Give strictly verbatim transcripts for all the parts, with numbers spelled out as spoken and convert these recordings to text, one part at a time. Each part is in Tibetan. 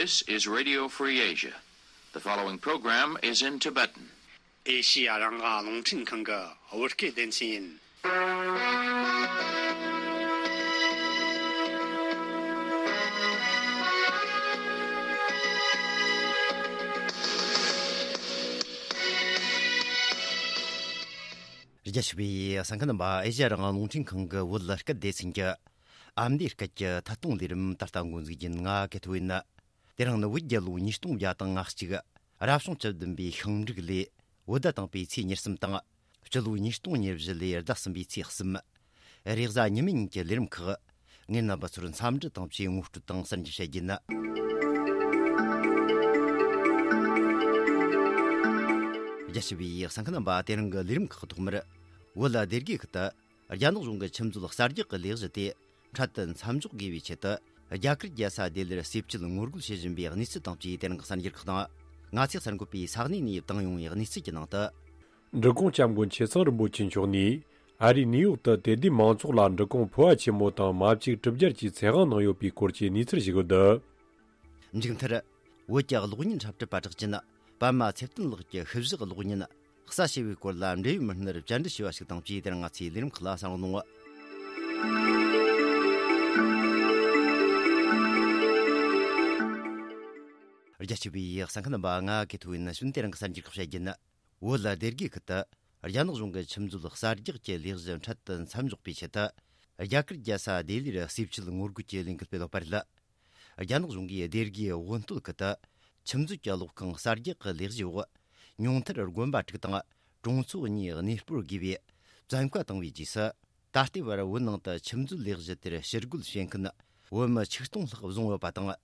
This is Radio Free Asia. The following program is in Tibetan. ཨེ་ཤི་ཡ་རང་དབང་རླུང་འཕྲིན་ཁང་གི་བོད་སྐད་སྡེ་ཚན་ཡིན། རྒྱ་ཆེ་བའི་གསན་མཁན་རྣམ་པ། ཨེ་ཤི་ཡ་རང་དབང་རླུང་འཕྲིན་ཁང་གི་བོད་སྐད་སྡེ་ཚན་གྱི་ཨ་མདོའི་སྐད་ཀྱི་ཐད་གཏོང་ལས་རིམ་ད་ལྟ་འགོ་འཛུགས་ཡིན། ང་ཀེ་ཐོ་ཡིན། དེ་རིང་ནི་བོད་རྒྱལ་ལོ་ཉིས་སྟོང་བརྒྱ་དང་ང་གཅིག་རབ་བྱུང་བཅུ་བདུན་པའི་ཤིང་འབྲུག་ལོའི་བོད་ཟླ་དང་པོའི་ཚེས་ཉེར་གསུམ་དང་། སྤྱི་ལོ་ཉིས་སྟོང་ཉེར་བཞི་ལོའི་ཟླ་གསུམ་པའི་ཚེས་གསུམ། རེས་གཟའ་ཉི་མའི་ཉིན་གྱི་ལས་རིམ་ཁག་ངས་རྣམ་པ་ཚོར་འཚམས་འདྲི་དང་བཅས་ངོ་སྤྲོད་དང་གསར་འགྱུར་བཤད་རྒྱུ་ཡིན། རྒྱ་ཆེ་བའི་གསན་མཁན་རྣམ་པ། དེ་རིང་གི་ལས་རིམ་ཁག་ཐོག་མར། བོད་ལ་སྡེ་དགེ་ཁུལ་དུ་རྒྱ་ནག་གཞུང་གི་ཆུ་མཛོད་གསར་རྒྱག་གི་ལས་གཞི་དེ་འཕྲལ་དུ་མཚམས་འཇོག་དགོས་པའི་ཆེད་དུ། རྒྱ་གར་རྒྱལ་ས་ལྡི་ལིར་ཟས་བཅད་ངོ་རྒོལ་བྱེད་བཞིན་པའི་གནས་ཚུལ་དང་བཅས། དེ་རིང་གི་གསར་འགྱུར་ཁག་དང་། ང་ཚོས་གསར་འགོད་པས་ས་གནས་ནས་བཏང་ཡོང་བའི་གནས་ཚུལ་གྱི་ནང་དུ། འབྲི་གུང་སྐྱབས་མགོན་ཆེ་ཚང་རིན་པོ་ཆེ་མཆོག་ནས་ཨ་རིའི་ནིའུ་ཡོག་ཏུ་དད་ལྡན་མང་ཚོགས་ལ་འབྲི་གུང་ཕོ་བ་ཆེན་མོ་དང་མ་བཅོས་གྲུབ་རྒྱལ་གྱི་ཚེ་དབང་གནང་ཡོད་པའི་སྐོར་གྱི་གནས་ཚུལ་ཞིག་ཡོད། འདི། མཇུག་མཐར། བོད་ཀྱི་གློག་བརྙན་འཁྲབ་ཁྲིད་པ་གྲགས་ཅན་པདྨ་ཚེ་བརྟན་ལགས་ཀྱི་ཤུལ་བཞག་གློག་བརྙན་གསལ་བྱེད་པའི་སྐོར་ལ་འབྲེལ་ཡོད་མི་སྣར་བཅར་འདྲི་ཞུས་པ་ཞིག་དང་བཅས། དེ་རིང་ང་ཚོའི་ལས་རིམ་ཁག་ལ་གསན་རོགས་གནང་། རྒྱ་ཆེ་བའི་གསན་མཁན་རྣམ་པ། ང་ཀེ་ཐོ་ཡིན། ཞུ་ན་དེ་རིང་གི་གསར་འགྱུར་ཁག་བཤད་རྒྱུ་ཡིན། བོད་ལ་སྡེ་དགེ་ཁུལ་དུ་རྒྱ་ནག་གཞུང་གི་ཆུ་མཛོད་གསར་རྒྱག་གི་ལས་གཞི་འཕྲལ་དུ་མཚམས་འཇོག་པའི་ཆེད་དུ། རྒྱ་གར་རྒྱལ་ས་ལྡི་ལིར་ཟས་བཅད་ངོ་རྒོལ་གྱི་ལས་འགུལ་སྤེལ་ཡོད་པ་རེད། རྒྱ་ནག་གཞུང་གིས་སྡེ་དགེའི་དབོན་སྟོད་ཁུལ་དུ་ཆུ་མཛོད་ཀྱི་གློག་ཁང་གསར་རྒྱག་གི་ལས་གཞིའི་འོག་ཉུང་མཐར་དགོན་པ་དྲུག་དང་གྲོང་ཚོ་གཉིས་གནས་སྤོར་དགོས་པའི་བཙན་བཀའ་བཏང་བའི་རྗེས་སུ། ད་ལྟའི་བར་བོད་ནང་དུ་ཆུ་མཛོད་ལས་གཞི་དེར་ཕྱིར་རྒོལ་བྱེད་མཁན་བོད་མི་ཆིག་སྟོང་ལྷག་བཟུང་ཡོད་པ་དང་།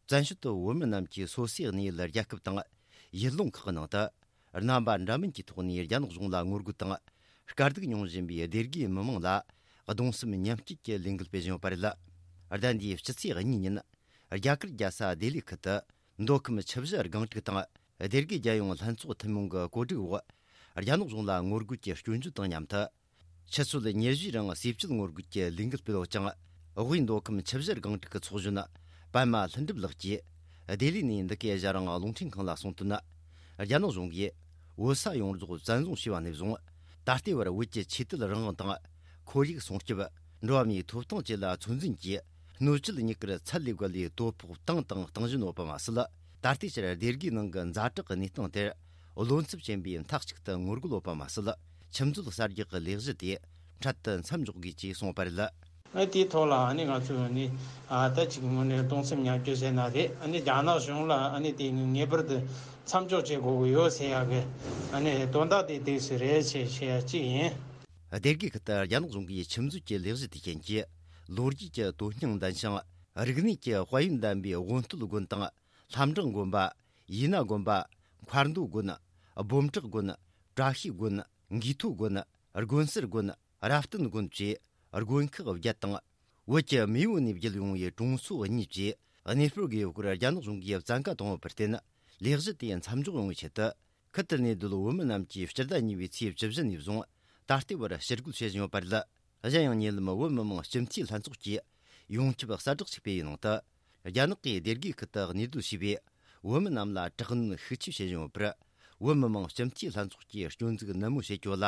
བཙན་བྱོལ་དུ་བོད་མི་རྣམས་ཀྱིས་སོ་སོའི་གནས་ཡུལ་རྒྱལ་ཁབ་དང་ཡུལ་ལུང་ཁག་གི་ནང་དུ། རྣམ་པ་འདྲ་མིན་གྱི་ཐོག་ནས་རྒྱ་ནག་གཞུང་ལ་ངོ་རྒོལ་དང་། དཀའ་སྡུག་མྱོང་བཞིན་པའི་སྡེ་དགེའི་མི་མང་ལ་གདུང་སེམས་མཉམ་སྐྱེད་ཀྱི་ལས་འགུལ་སྤེལ་བཞིན་ཡོད་པ་རེད། ཟླ་འདིའི་སྤྱི་ཚེས་གཉིས་ཉིན། རྒྱ་གར་རྒྱལ་ས་ལྡི་ལི་ཁུལ་དུ། མདོ་ཁམས་ཆུ་བཞི་སྒང་དྲུག་དང་། སྡེ་དགེ་རྒྱལ་ཡོངས་ལྷན་ཚོགས་ཐུན་མོང་གི་གོ་སྒྲིག་འོག་རྒྱ་ནག་གཞུང་ལ་ངོ་རྒོལ་གྱི་སྐྱོན་བརྗོད་དང་མཉམ་དུ། ཆུ་ཚོད་ཉེར་བཞིའི་རིང་ཟས་བཅད་ངོ་རྒོལ་གྱི་ལས་འགུལ་སྤེལ་ཡོད་ཅིང་། དབུས་མདོ་ཁམས་ཆུ་བཞི་སྒང་དྲུག་གི་ཚོགས་གཞོན་པདྨ་ལྷུན་གྲུབ་ལགས་ཀྱིས། ལྡི་ལི་ནས་འདི་གའི་ཨེ་ཤ་ཡ་རང་དབང་རླུང་འཕྲིན་ཁང་ལ་གསུངས་དོན། རྒྱ་ནག་གཞུང་གིས་བོད་ས་ཡོངས་རྫོགས་བཙན་བཟུང་བྱས་པ་ནས་བཟུང་། ད་ལྟའི་བར་བོད་ཀྱི་ཆོས་དད་རང་དབང་དང་། ཁོར་ཡུག་སྲུང་སྐྱོབ། འགྲོ་བ་མིའི་ཐོབ་ཐང་བཅས་ལ་ཚོད་འཛིན་གྱིས། སྣོད་བཅུད་དངུལ་ཁང་ཚད་ལས་བརྒལ་བའི་དོ་ཕོག་བཏང་དང་གཏོང་བཞིན་ཡོད་པ་མ་ཟད། ད་ལྟའི་ཆར་སྡེ་དགེའི་ནང་གི་ཛ་དྲག་གི་གནས་སྟངས་དེར། བློ་འཚབ་ཆེན་པོས་མཐའ་གཅིག་ཏུ་ངོ་རྒོལ་ཡོད་པ་མ་ཟད། ཆུ་མཛོད་གསར་རྒྱག་གི་ལས་གཞི་དེ་འཕྲལ་དུ་མཚམས་འཇོག་དགོས་ཅེས་གསུངས་པ་རེད། ཨ་དེའི་ཐོག་ལ་ཨ་ནི་ང་ཚོས་ནི་ཨ་ད་ཅིག་དངོས་གནས་གདུང་སེམས་མཉམ་སྐྱེད་ཟེར་ན་རེད། ཨ་ནི་རྒྱ་ནག་གཞུང་ལ་ཨ་ནི་དེ་ངེས་པར་དུ་མཚམས་འཇོག་བྱེད་དགོས་ཀྱི་ཡོད་ཟེར་ཡག་གི་ཨ་ནི་དོན་དག་དེ་དེ་སུ་རེད་ཅེས་བཤད་ཡག་གཅིག་ཡིན། སྡེ་དགེ་ཁུལ་དུ་རྒྱ་ནག་གཞུང་གིས་ཆུ་མཛོད་ཀྱི་ལས་གཞི་དེ་རྐྱེན་གྱིས། ལོ་རྒྱུས་ཀྱི་དོན་སྙིང་ལྡན་ཞིང་། རིག་གནས་ཀྱི་དཔལ་ཡོན་ལྡན་པའི་དབོན་སྟོད་དགོན་དང་། ལྷ་འབྲང་དགོན་པ། ཡིད་ན་དགོན་པ། མཁར་མདོ་དགོན། སྦོམ་བྲག་དགོན། བཀྲ་ཤིས་དགོན། འགུས་ཐོ་དགོན། དགོན་གསར་དགོན། རབ་བརྟན་དགོན་བཅས་དགོན་ཁག་བརྒྱད་དང་། བོད་ཀྱི་མེས་པོ་ནས་བརྒྱུད་ཡོང་བའི་གྲོང་ཚོ་གཉིས་བཅས་གནས་སྤོར་དགོས་སྐོར་རྒྱ་ནག་གཞུང་གིས་བཙན་བཀའ་བཏང་བ་བར་བརྟེན། ལས་གཞི་དེ་མཚམས་འཇོག་ཡོང་བའི་ཆེད་དུ། ཁུལ་དེར་གནས་སྡོད་བོད་མི་རྣམས་ཀྱིས་སྤྱི་ཟླ་གཉིས་པའི་ཚེས་བཅུ་བཞི་ནས་བཟུང་ད་ལྟའི་བར་ཕྱིར་རྒོལ་བྱེད་བཞིན་ཡོད་པ་རེད། གཞན་ཡང་ཉེ་ལམ་བོད་མི་མང་སྤྱི་འཐུས་ལྷན་ཚོགས་ཀྱིས་ཡོངས་ཁྱབ་གསལ་བསྒྲགས་ཤིག་སྤེལ་བའི་ནང་དུ། རྒྱ་ནག་གིས་སྡེ་དགེ་ཁུལ་དུ་གནས་སྡོད་བྱས་པའི་བོད་མི་རྣམས་ལ་དྲག་གནོན་ཤུགས་ཆེ་བྱེད་བཞིན་ཡོད་པར། བོད་མི་མང་སྤྱི་འཐུས་ལྷན་ཚོགས་ཀྱིས་སྐྱོན་འཛུགས་ནན་མོ་བྱེད་རྒྱུ་ལ།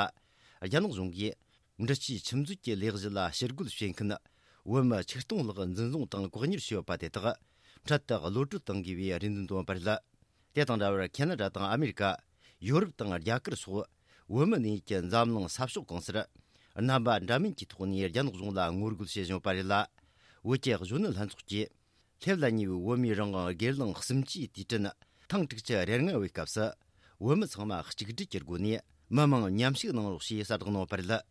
རྒྱ་ནག་གཞུང་གིས་འབྲི་ཆུའི་ཆུ་མཛོད་ཀྱི་ལས་གཞི་ལ་ཕྱིར་རྒོལ་བྱེད་མཁན་བོད་མི་ཆིག་སྟོང་ལྷག་འཛིན་བཟུང་དང་བཀག་ཉར་བྱས་ཡོད་པ་དེ་དག་འཕྲལ་དུ་གློད་གྲོལ་གཏང་དགོས་པའི་རེ་འདུན་བཏོན་པ་རེད། དེ་དང་འདྲ་བར་ཁེ་ན་ཌ་དང་ཨ་མེ་རི་ཀ། ཡོ་རོབ་དང་རྒྱ་གར་སོགས་བོད་མི་གནས་ཡུལ་གྱི་འཛམ་གླིང་ས་ཕྱོགས་གང་སར། རྣམ་པ་འདྲ་མིན་གྱི་ཐོག་ནས་རྒྱ་ནག་གཞུང་ལ་ངོ་རྒོལ་བྱེད་བཞིན་ཡོད་པ་རེད་ལ། བོད་ཀྱི་གཞོན་ནུ་ལྷན་ཚོགས་ཀྱིས། སླེབས་ལ་ཉེ་བའི་བོད་མིའི་རང་དབང་སྒེར་ལངས་གསུམ་བཅུའི་དུས་དྲན་ཐེངས་དྲུག་ཅུ་རེ་ལྔ་བའི་སྐབས་སུ། བོད་མི་ཚང་མ་གཅིག་སྒྲིལ་གྱི་སྒོ་ནས་མི་མང་མཉམ་ཞུགས་གནང་རོགས་ཞེས་གསལ་བསྒྲགས་གནང་བ་རེད།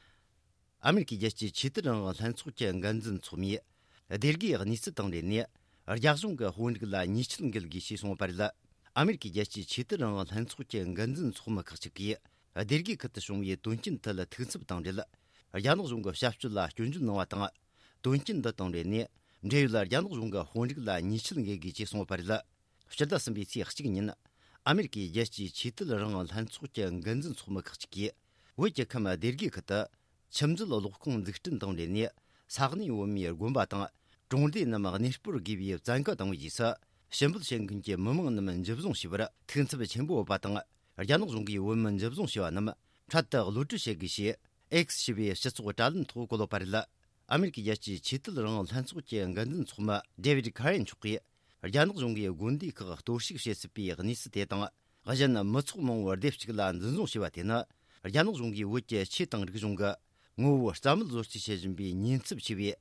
ཨ་མེ་རི་ཀའི་རྒྱལ་སྤྱིའི་ཆོས་དད་རང་དབང་ལྷན་ཚོགས་ཀྱི་འགན་འཛིན་ཚོགས་མིས། སྡེ་དགེའི་གནས་ཚུལ་དང་འབྲེལ་ནས། རྒྱ་གཞུང་གི་དཔོན་རིགས་ལ་ཉེས་ཆད་འགེལ་དགོས་ཞེས་གསུངས་པ་རེད། ཨ་མེ་རི་ཀའི་རྒྱལ་སྤྱིའི་ཆོས་དད་རང་དབང་ལྷན་ཚོགས་ཀྱི་འགན་འཛིན་ཚོགས་མི་ཁག་ཅིག་གིས། སྡེ་དགེ་ཁུལ་དུ་བྱུང་བའི་དོན་རྐྱེན་ཐད་ཐུགས་འཚབ་དང་འབྲེལ། རྒྱ་ནག་གཞུང་གི་བྱ་སྤྱོད་ལ་སྐྱོན་བརྗོད་གནང་བ་དང་། དོན་རྐྱེན་འདི་དང་འབྲེལ་ནས། འབྲེལ་ཡོད་རྒྱ་ནག་གཞུང་གི་དཔོན་རིགས་ལ་ཉེས་ཆད་འགེལ་དགོས་ཅེས་གསུངས་པ་རེད། སྤྱི་ཟླ་གསུམ་པའི་ཚེས་གཅིག་ཉིན། ཨ་མེ་རི་ཀའི་རྒྱལ་སྤྱིའི་ཆོས་དད་རང་དབང་ལྷན་ཚོགས་ཀྱི་འགན་འཛིན་ཚོགས་མི་ཁག་ཅིག་གིས། བོད་ཀྱི་ཁམས་སྡེ་དགེ་ཁུལ་དུ། ཆུ་མཛོད་གློག་ཁང་འཛུགས་སྐྲུན་དང་འབྲེལ་ནས། ས་གནས་བོད་མིའི་དགོན་པ་དང་། གྲོང་སྡེ་རྣམས་གནས་སྤོར་དགོས་པའི་བཙན་བཀའ་བཏང་བའི་རྗེས་སུ། ཕྱིར་འབུད་བྱེད་མཁན་གྱི་མི་མང་རྣམས་འཇུ་བཟུང་བྱས་པར་ཐུགས་འཚབ་ཆེན་པོ་ཡོད་པ་དང་། རྒྱ་ནག་གཞུང་གིས་བོད་མི་འཇུ་བཟུང་བྱས་པ་རྣམས་འཕྲལ་དུ་གློད་གྲོལ་བྱེད་དགོས་ཞེས་X ཞེས་པའི་སྤྱི་ཚོགས་དྲ་ལམ་ཐོག་བཀོད་ཡོད་པ་རེད། ཨ་མེ་རི་ཀའི་རྒྱལ་སྤྱིའི་ཆོས་དད་རང་དབང་ལྷན་ཚོགས་ཀྱི་འགན་འཛིན་ཚོགས་མི་David Karen་མཆོག་གིས། རྒྱ་ནག་གཞུང་གིས་དགོན་སྡེ་ཁག་གཏོར་བཤིག་བྱེད་སྲིད་པའི་གནས་ཚུལ་དེ་དང་། གཞན་མི་ཚོགས་མང་བོ་སྡེ་གཅིག་ལ་འཛིན་བཟུང་བྱས་པ་དེ་ནི། རྒྱ་ནག་གཞུང་གིས་བོད་ཀྱི་ཆོས་དང་རིག་གཞུང་གི་ངོ་བོ་རྩ་མེད་བཟོ་རྩིས་བྱེད་བཞིན་པའི་ཉེན་ཚབས་ཆེ་བས།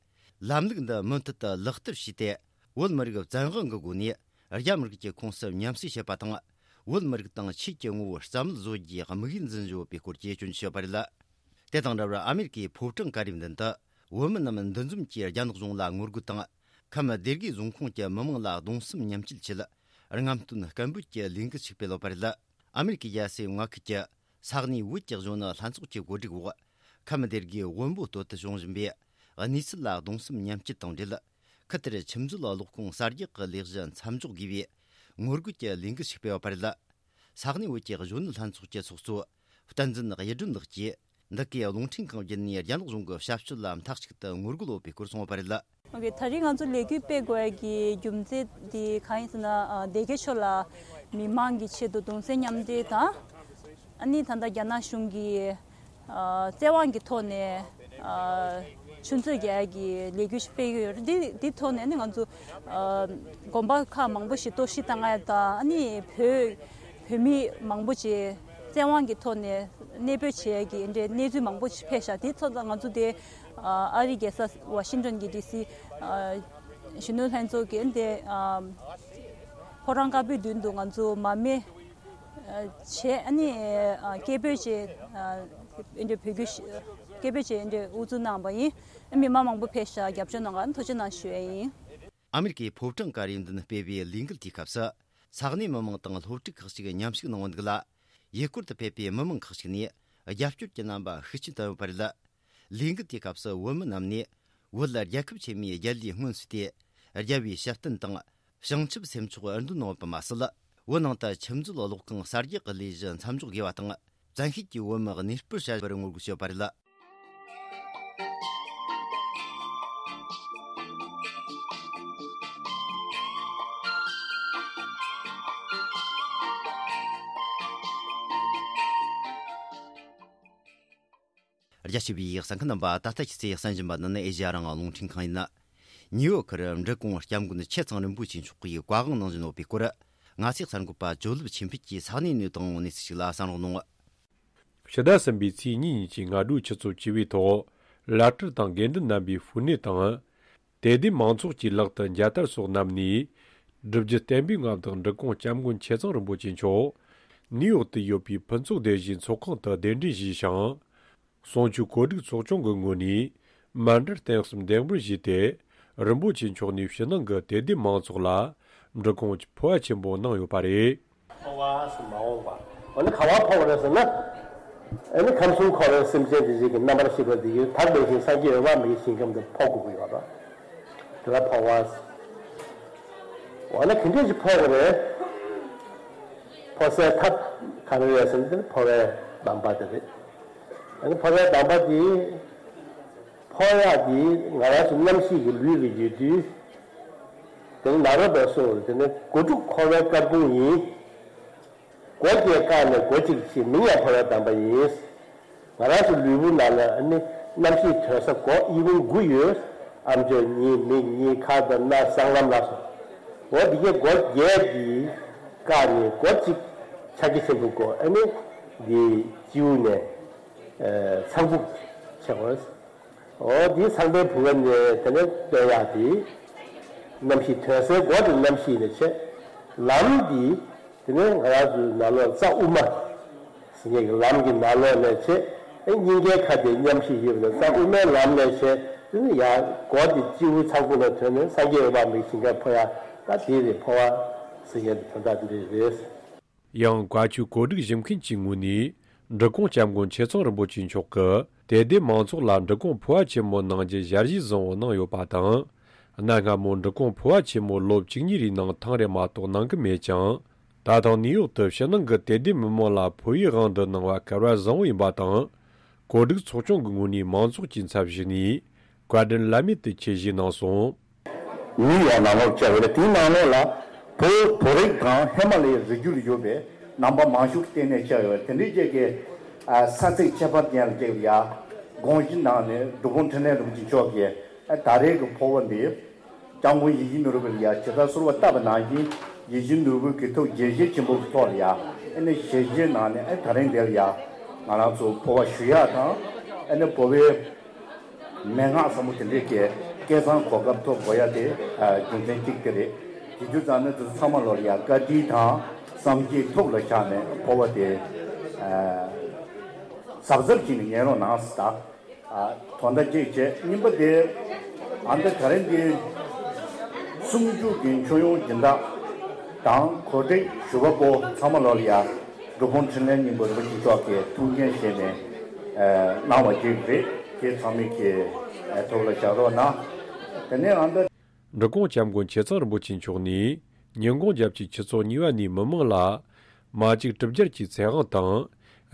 ལམ་ལུགས་འདི་མུ་མཐུད་དུ་ལག་བསྟར་བྱས་ཏེ། བོད་མི་རིགས་བཙན་དབང་གི་སྒོ་ནས་རྒྱ་མི་རིགས་ཀྱི་ཁོངས་སུ་མཉམ་བསྲེས་བྱེད་པ་དང་། བོད་མི་རིགས་དང་ཆོས་ཀྱི་ངོ་བོ་རྩ་མེད་བཟོ་རྒྱུའི་དམིགས་ཡུལ་འཛིན་བཞིན་ཡོད་པའི་སྐོར་གྱི་སྐྱོན་བརྗོད་བྱས་ཡོད་པ་རེད། དེ་དང་འདྲ་བར་ཨ་མེ་རི་ཀའི་ཕོ་བྲང་ཀ་རིའི་མདུན་དུ་བོད་མི་རྣམས་འདུ་འཛོམས་ཀྱིས་རྒྱ་ནག་གཞུང་ལ་ངོ་རྒོལ་དང་། ཁམས་སྡེ་དགེ་རྫོང་ཁོངས་ཀྱི་མི་མང་ལ་གདུང་སེམས་མཉམ་སྐྱེད་ཆེད། རྔམ་སྟོན་སྐད་འབོད་ཀྱི་ལས་འགུལ་ཞིག་སྤེལ་ཡོད་པ་རེད། ཨ་མེ་རི་ཀའི་རྒྱལ་སའི་མངའ་ཁུལ་གྱི་ས་གནས་བོད་ཀྱི་གཞོན་ནུ་ལྷན་ཚོགས་ཀྱི་གོ་སྒྲིག་འོག་ཁམས་སྡེ་དགེའི་དབོན་པོ་སྟོད་དུ་བྱུང་བཞིན་པའི་གནས་ཚུལ་ལ་གདུང་སེམས་མཉམ་སྐྱེད་དང་འབྲེལ། ཁུལ་དེར་ཆུ་མཛོད་གློག་ཁུངས་གསར་རྒྱག་གི་ལས་གཞི་མཚམས་འཇོག་དགོས་པའི་ངོ་རྒོལ་གྱི་ལས་འགུལ་ཞིག་སྤེལ་ཡོད་པ་རེད། ས་གནས་བོད་ཀྱི་གཞོན་ནུ་ལྷན་ཚོགས་ཀྱི་ཚོགས་གཙོ་བསྟན་འཛིན་གཡུ་སྒྲོན་ལགས་ཀྱིས། འདི་གའི་རླུང་འཕྲིན་ཁང་བརྒྱུད་ནས་རྒྱ་ནག་གཞུང་གི་བྱ་སྤྱོད་ལ་མཐའ་གཅིག་ཏུ་ངོ་རྒོལ་ཡོད་པའི་སྐོར་གསུངས་ཡོད་པ་རེད། ཨོ་ཀེ། ད་རེས་ང་ཚོ་ལས་འགུལ་སྤེལ་དགོས་ཡ་གི་རྒྱུ་མཚན་དེ་གང་ཡིན་ཟེར་ན། ཨ། སྡེ་དགེ་ཆོས་ལ་མི་མང་གི་ཆེད་དུ་གདུང་སེམས་མཉམ་སྐྱེད་དང་། ཨ་ནི་ད་ལྟ་རྒྱ་ནག་གཞུང་གིས། ཨ། བཙན་དབང་གི་ཐོག་ནས། ཨ། ཆུ་མཛོད་རྒྱག་ཡ་གི་ལས་འགུལ་ཞིག་སྤེལ་གྱི་ཡོད་རེད། འདི་འདི་ཐོག་ནས་ནི་ང་ཚོ། ཨ། དགོན་པ་ཁག་མང་པོ་ཞིག་གཏོར་བཤིག་བཏང་ཡ་དང་། ཨ་ནི་བོད་བོད་མི་མང་པོ་ཅིག་བཙན་དབང་གི་ཐོག་ནས་གནས་སྤོས་བྱེད་ཡ་གི་འདྲའི་གནས་ཚུལ་མང་པོ་ཞིག་ཕེབས་ཤག་དེ་ཚོ་ང་ཚོ་དེ། ཨ། ཨ་རིའི་རྒྱལ་ས་ཝ་ཤིང་ཏོན་གྱི་ཌི་སི། ཨ། གཞོན་ནུ་ལྷན་ཚོགས་ཀྱི་དེ། ཨ། ཕོ་བྲང་དཀར་པོའི་མདུན་དུ་ང་ཚོ་མར་མེ། ཨ། བྱས། ཨ་ནི། ཨ། སྐད་འབོད་བྱས། ཨ། འདི་འདྲའི་བོད་སྐད་ཞིག་སྐད་འབོད་བྱས། འདི་འདྲའི་དབུ་འཛུགས་གནང་བ་ཡིན། མི་མང་མང་པོ་ཕེབས་ཤག་རྒྱབ་སྐྱོར་གནང་བར་ཐུགས་རྗེ་གནང་ཞུ་ཡ་ཡིན། ཨ་མེ་རི་ཀའི་ཕོ་བྲང་ཀ་རའི་མདུན་སྤེལ་བའི་ལས་འགུལ་དེའི་སྐབས་སུ། ས་གནས་མི་མང་དང་སློབ་ཕྲུག་ཁག་ཅིག་མཉམ་ཞུགས་གནང་བ་འདུག་ལ། ཡུལ་སྐོར་དུ་ཕེབས་པའི་མི་མང་ཁག་ཅིག་ནས་རྒྱབ་སྐྱོར་གྱི་རྣམ་པ་ཤུགས་ཆེན་བསྟན་ཡོད་པ་རེད། ལས་འགུལ་དེའི་སྐབས་སུ་བོད་མི་རྣམས་ནས་བོད་རྒྱལ་ཁབ་ཆེན་མོའི་རྒྱལ་ལས་སྔོན་སྲོལ་ཏེ། རྒྱལ་བའི་ཞབས་བརྟན་དང་། བྱང་ཆུབ་སེམས་མཆོག་འདོན་གནང་བ་མ་ཟད། བོད་ནང་དུ་ཆུ་མཛོད་གློག་ཁང་གསར་རྒྱག་གི་ལས་གཞི་མཚམས་འཇོག་དགོས་པ་དང་། བཙན་ཤེད་ཀྱིས་བོད་མི་གནས་སྤོར་བྱ་བར་ངོ་རྒོལ་བྱས་ཡོད་པ་རེད། རྒྱ་ཆེ་བའི་གསན་མཁན་རྣམ་པ། ད་ལྟ་ཁྱེད་ཚོས་གསན་བཞིན་པ་འདི་ནི་ཨེ་ཤེ་ཡ་རང་དབང་རླུང་འཕྲིན་ཁང་ཡིན། ནིའུ་ཡོག་གི་འབྲི་གུང་སྐྱབས་མགོན་ཆེ་ཚང་རིན་པོ་ཆེ་མཆོག་གིས་བཀའ་དབང་གནང་བཞིན་ཡོད་པའི་སྐོར། ང་ཚོའི་གསར་འགོད་པ་ཇོ་ལེབ་ཆོས་འཕེལ་གྱིས་ས་གནས་ནས་བཏང་བའི་གནས་ཚུལ་ཞིག་ལ་གསན་རོགས་གནང་། ཕྱི་ཟླ་གསུམ་པའི་ཚེས་གཉིས་ཉིན་གྱི་སྔ་དྲོའི་ཆུ་ཚོད་བཅུ་པའི་ཐོག་བླ་སྤྲུལ་དང་དགེ་འདུན་རྣམ་པས་ཧྥུ་ནེ་དང་། དད་ལྡན་མང་ཚོགས་ཀྱི་ལག་ཏུ་མཇལ་དར་སོགས་བསྣམས་ནས། སྒྲུབ་བརྒྱུད་བསྟན་པའི་མངའ་བདག་འབྲི་གུང་སྐྱབས་མགོན་ཆེ་ཚང་རིན་པོ་ཆེ་མཆོག་ནིའུ་ཡོག་ཏུ་ཡོད་པའི་ཕུན་ཚོགས་སྡེ་བཞིའི་ཚོགས་ཁང་དུ་གདན་འདྲེན་ཞུས་ཤིང་། གསུང་ཆོས་གོ་སྒྲིག་ཚོགས་ཆུང་གི་ངོས་ནས་མཎྜལ་རྟེན་གསུམ་འདེགས་འབུལ་ཞུས་ཏེ། རིན་པོ་ཆེ་མཆོག་ནས་ཕྱི་ནང་གི་དད་ལྡན་མང་ཚོགས་ལ་འབྲི་གུང་ཕུར་པ་ཆེན་པོ་གནང་ཡོད་པ་རེད། འཕོ་བ་ཟེར་མ་འོངས་པ། འོ་ན་ག་པར་འཕོ་བ་རེད་ཟེར་ན། ཨ་ནི་ཁམས་གསུམ་འཁོར་བའི་སེམས་ཅན་དེ་ཚོ་གི་རྣམ་པར་ཤེས་པ་དེ་ཡིས་དག་པའི་ཞིང་སངས་རྒྱས་འོད་དཔག་མེད་ཀྱི་ཞིང་ཁམས་དུ་འཕོ་དགོས་ཀྱི་ཡོད་རེད། དེ་ལ་འཕོ་བ་ཟེར། འོ་ན་ག་འདྲ་ཞིག་འཕོ་དགོས་རེད། འཕོ་སའི་ཐབས་ག་རེ་རེད་ཟེར་ན། དེ་ནི་འཕོ་བའི་གདམས་པ་དེ་རེད། ཨ་ནི་འཕོ་བའི་གདམས་པ་དེ། འཕོ་ཡག་དེ་ང་རང་ཚོ་རྣམ་ཤེས་ཀྱི་ལུས་ལ་ཡོད་དུས། དེ་ནི་ནཱ་རོ་པས་གསུངས་པ་དེ་ནི་སྒོ་དྲུག་འཁོར་བའི་སྐར་ཁུང་ཡིན། སྒོ་བརྒྱད་བཀག་ནས་སྒོ་གཅིག་ཕྱེ། མིང་ཡང་འཕོ་བའི་གདམས་པ་ཡིན། ང་རང་ཚོ་ལུས་པོ་ནང་ལ་ནི་རྣམ་ཤེས་དོན་ས་སྒོ་དབྱེ་བ་དགུ་ཡོད། ཨམ་ཅོག་གཉིས། མིག་གཉིས། ཁ་དང་སྣ། སྲང་ལམ་ལ་སོགས། འོ་འདི་གའི་སྒོ་བརྒྱད་འདི་བཀག་ནས་སྒོ་གཅིག་ཕྱག་རྒྱ་ཆེན་པོའི་སྒོ། ཨ་ནི་འདི་སྤྱི་བོ་ནས་ཨ་ཚངས་བུག་ཕྱེ་དགོས། འོ་འདི་ཚངས་པའི་བུ་ག་ནས་དེ་ནས་བཏོན་ཡག་དེ། རྣམ་ཤེས་དོན་སའི་སྒོ་དེ་རྣམ་ཤེས་ནས་ཕྱེ། ལམ་འདི། དེ་ནས་ང་རང་ཚོའི་ནང་ལོགས་རྩ་དབུ་མ་ཟེར་མཁན་གྱི་ལམ་གྱི་ནང་ལོགས་ནས་བྱས། ཨེ་སྙིང་གའི་ཁ་དེ་མཉམ་བཞག་ཡོད་པ་ནས་རྩ་དབུ་མའི་ལམ་ནས་བྱས། དེ་ནས་ཡར་སྒོ་དེ་སྤྱི་བོའི་ཚངས་བུག་ལ་ཐོན་ནས་སངས་རྒྱས་འོད་དཔག་མེད་ཞིང་ཁར་འཕོ་ཡ། ད་དེ་རེད། འཕོ་བ་ཟེར་མཁན་དེ་དོན་དག་དེ་འདྲ་རེད། ཡང་བཀའ་ཆོས་གོ་སྒྲིག་ཞུ་མཁན་གྱི་ངོས་ནས་འབྲི་གུང་སྐྱབས་མགོན་ཆེ་ཚང་རིན་པོ་ཆེ་མཆོག་གིས་དད་ལྡན་མང་ཚོགས་ལ་འབྲི་གུང་འཕོ་བ་ཆེན་མོ་གནང་རྒྱུ་ཞལ་བཞེས་བཟང་བོ་གནང་ཡོད་པ་དང་། གནའ་སྔ་མོ་འབྲི་གུང་འཕོ་བ་ཆེན་མོ་ལོ་བཅུ་གཉིས་རེའི་ནང་ཐེངས་རེ་མ་གཏོགས་གནང་གི་མེད་ཀྱང་། ད་ཐེངས་ནིའུ་ཡོག་ཏུ་ཕྱི་ནང་གི་དད་ལྡན་མི་མང་ལ་འཕོ་བའི་དབང་དུ་གནང་བ་གལ་བ་བཟང་བོ་ཡིན་པ་དང་། གོ་སྒྲིག་ཚོགས་ཆུང་གི་ངོས་ནས་མང་ཚོགས་ཀྱི་ཚབ་ཞུས་ནས་བཀའ་དྲིན་བླ་མེད་དུ་ཆེ་ཞུས་གནང་སོང་། ནིའུ་ཡོག་ནང་ལོགས་བཅར་བ་རེད། དེའི་ནང་ལོགས་ལ་ བོད་བོད་རིགས་དང་ཧི་མ་ལ་ཡའི་རི་རྒྱུད་ལ་ཡོད་པའི་ནང་པ་མང་ཤོས་ཀྱི་ལྟེ་གནས་ཆགས་ཡོད་པ་དེ་འདྲའི་ཅིག་གི་ས་ཚིགས་ཁྱད་པར་ཅན་ལ་ཅིག་ལ་ཡ་དགོངས་གཞི་གནང་ནས་སྒྲུབ་ཕུག་འཕྲིན་ལས་རིན་པོ་ཆེ་མཆོག་གིས་ད་རེས་ཀྱི་འཕོ་བ་འདི་སྐྱབས་མགོན་ཡིད་བཞིན་ནོར་བུ་ལ་ཡ་ཇི་ལྟར་གསོལ་བ་བཏབ་པ་ནང་བཞིན་ཡིད་བཞིན་ནོར་བུ་གི་ཐུགས་དགྱེས་བཞེས་ཆེན་པོ་གི་ཐོག་ལ་ཡ་ཨ་ནི་ཞལ་བཞེས་གནང་ནས་ཨ་ད་རིང་འདིར་ཡ་ང་རང་ཚོ་འཕོ་བ་ཞུ་ཡ་དང་ཨ་ནི་འཕོ་བའི་མན་ངག་ཟབ་མོ་དེ་འདྲའི་གི་སྐལ་བཟང་གོ་སྐབས་ཐོབ་དགོས་ཡ་དེ་རྒྱུ་མཚན་གཅིག་དེ་རེད། དེ་རྒྱུ་ཙང་ནི་དེ་ཚོ་ཚང་མ་ལོ་ལ་ཡ་བཀའ་དྲིན་དང་བསམ་ཤེས་ཐུགས་ལ་བཞག་ནས་འཕོ་བ་དེ་གཟབ་གཟབ་བྱས་ནས་ཉན་རོགས་གནང་ཟེར། ད་དོན་དག་གཅིག་བྱས། གཉིས་པ་དེ་ཨ་ནི་ད་རིང་འདི་གསུང་ཆོས་ཀྱི་མཆོད་ཡོན་སྦྱིན་བདག་དང་གོ་སྒྲིག་ཞུ་བ་པོ་ཚང་མ་ལོ་ལ་ཡ་སྒྲུབ་ཕུག་འཕྲིན་ལས་སྙིང་པོ་རིན་པོ་ཆེ་མཆོག་གིས་ཐུགས་འགན་བཞེས་ནས་གནང་བ་ཅིག་རེད། དེ་ཚང་མས་ཀྱི་ཐུགས་ལ་བཞག་རོགས་གནང་། དེ་ནས་ཨ་ནི་འབྲི་གུང་སྐྱབས་མགོན་ཆེ་ཚང་རིན་པོ་ཆེ་མཆོག་ནས་ཉིན་གུང་རྒྱལ་སྤྱིའི་ཆུ་ཚོད་གཉིས་པ་ནས་མི་མང་ལ་མ་གཅིག་གྲུབ་རྒྱལ་གྱི་ཚེ་དབང་དང་།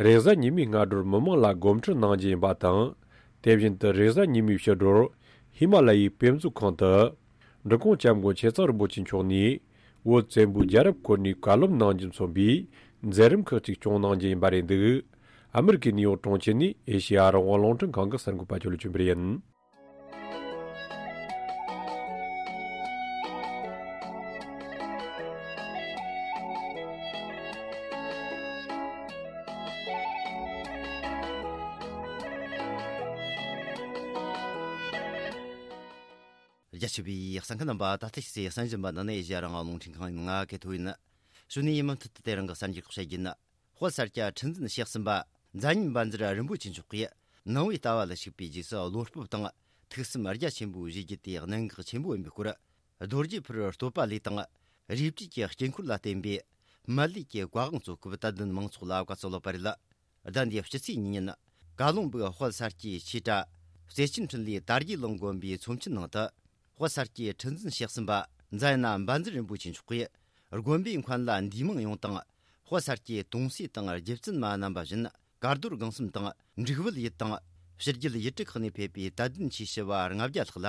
རེས་གཟའ་ཉི་མའི་སྔ་དྲོར་མི་མང་ལ་སྒོམ་ཁྲིད་གནང་རྒྱུ་ཡིན་པ་དང་། དེ་བཞིན་དུ་རེས་གཟའ་ཉི་མའི་ཕྱི་དྲོར་ཧི་མ་ལ་ཡའི་དཔེ་མཛོད་ཁང་དུ་འབྲི་གུང་སྐྱབས་མགོན་ཆེ་ཚང་རིན་པོ་ཆེ་མཆོག་ནས་བོད་བཙན་པོའི་རྒྱལ་རབས་སྐོར་ནས་བཀའ་སློབ་གནང་རྒྱུ་མཚོན་པའི་མཛད་རིམ་ཁག་ཅིག་སྐྱོང་གནང་རྒྱུ་ཡིན་པ་རེད་འདུག་ཨ་མེ་རི་ཀའི་ནིའུ་ཡོག་གྲོང་ཁྱེར་ནས་ཨེ་ཤེ་ཡ་རང་དབང་རླུང་འཕྲིན་ཁང་གི་གསར་འགོད་པ་ཇོ་ལུ་ཆོས་འཕེལ་ཡིན། རྒྱ་ཆེ་བའི་གསན་མཁན་རྣམ་པ། ད་ལྟ་ཕྱི་ཚེས་གསན་བཞིན་པ་ནི་ཨེ་ཤེ་ཡ་རང་དབང་རླུང་འཕྲིན་ཁང་ཡིན། ང་གི་ཐོ་ཡིན། གཞུག་ནས་ཡིན་མུ་མཐུད་དུ་དེ་རིང་གི་གསར་འགྱུར་ཁག་བཤད་རྒྱུ་ཡིན། དཔལ་ས་སྐྱ་ཁྲི་འཛིན་ཞེ་གསུམ་པ་མཛད་ཉན་བཛྲ་རིན་པོ་ཆེ་མཆོག་གིས་ནང་པའི་ལྟ་བ་ལ་ཞུགས་པའི་རྗེས་སུ་བློ་སྤོབས་དང་ཐུགས་སེམས་རྒྱ་ཆེན་པོས་བཞེས་རྒྱུ་དེ་གནད་འགག་ཆེན་པོ་ཡིན་པའི་སྐོར། རྡོ་རྗེ་ཕུར་བུའི་བསྟོད་པ་ལས་དང་། རས་བྲིས་ཀྱི་དཀྱིལ་འཁོར་ལ་བརྟེན་པའི་སྨན་བླའི་གི་བཀའ་དབང་གཙོ་སྐབས་དད་ལྡན་མང་ཚོགས་ལ་བཀའ་སྩལ་བ་རེད། ཟླ་འདིའི་སྤྱི་ཚེས་གཉིས་ཉིན། ཀ་ལོང་སྦུག་དཔལ་ས་སྐྱའི་ཆོས་གྲྭ་རྩེ་ཆེན་འཕྲིན་ལས་དར་རྒྱས་གླིང་དགོན་པའི་ཚོམས་ཆེན་ནང་དུ། དཔལ་ས་སྐྱའི་ཁྲི་འཛིན་ཞེ་གསུམ་པ་མཛད་ན་བཛྲ་རིན་པོ་ཆེ་མཆོག་གིས་དགོན་པའི་མཁན་བླ་འདུས་མང་ཡོངས་དང་། དཔལ་ས་སྐྱའི་དུང་སྲས་དང་རྗེ་བཙུན་མ་རྣམ་པ་བཞིན་དཀར་རྡོར་སྒང་གསུམ་དང་འབྲུག་བལ་ཡུལ་དང་ཕྱི་རྒྱལ་ཡུལ་གྲུ་ཁག་ནས་ཕེབས་པའི་དད་ལྡན་ཆོས་ཞུ་བ་ལྔ་བརྒྱ་ལྷག་ལ།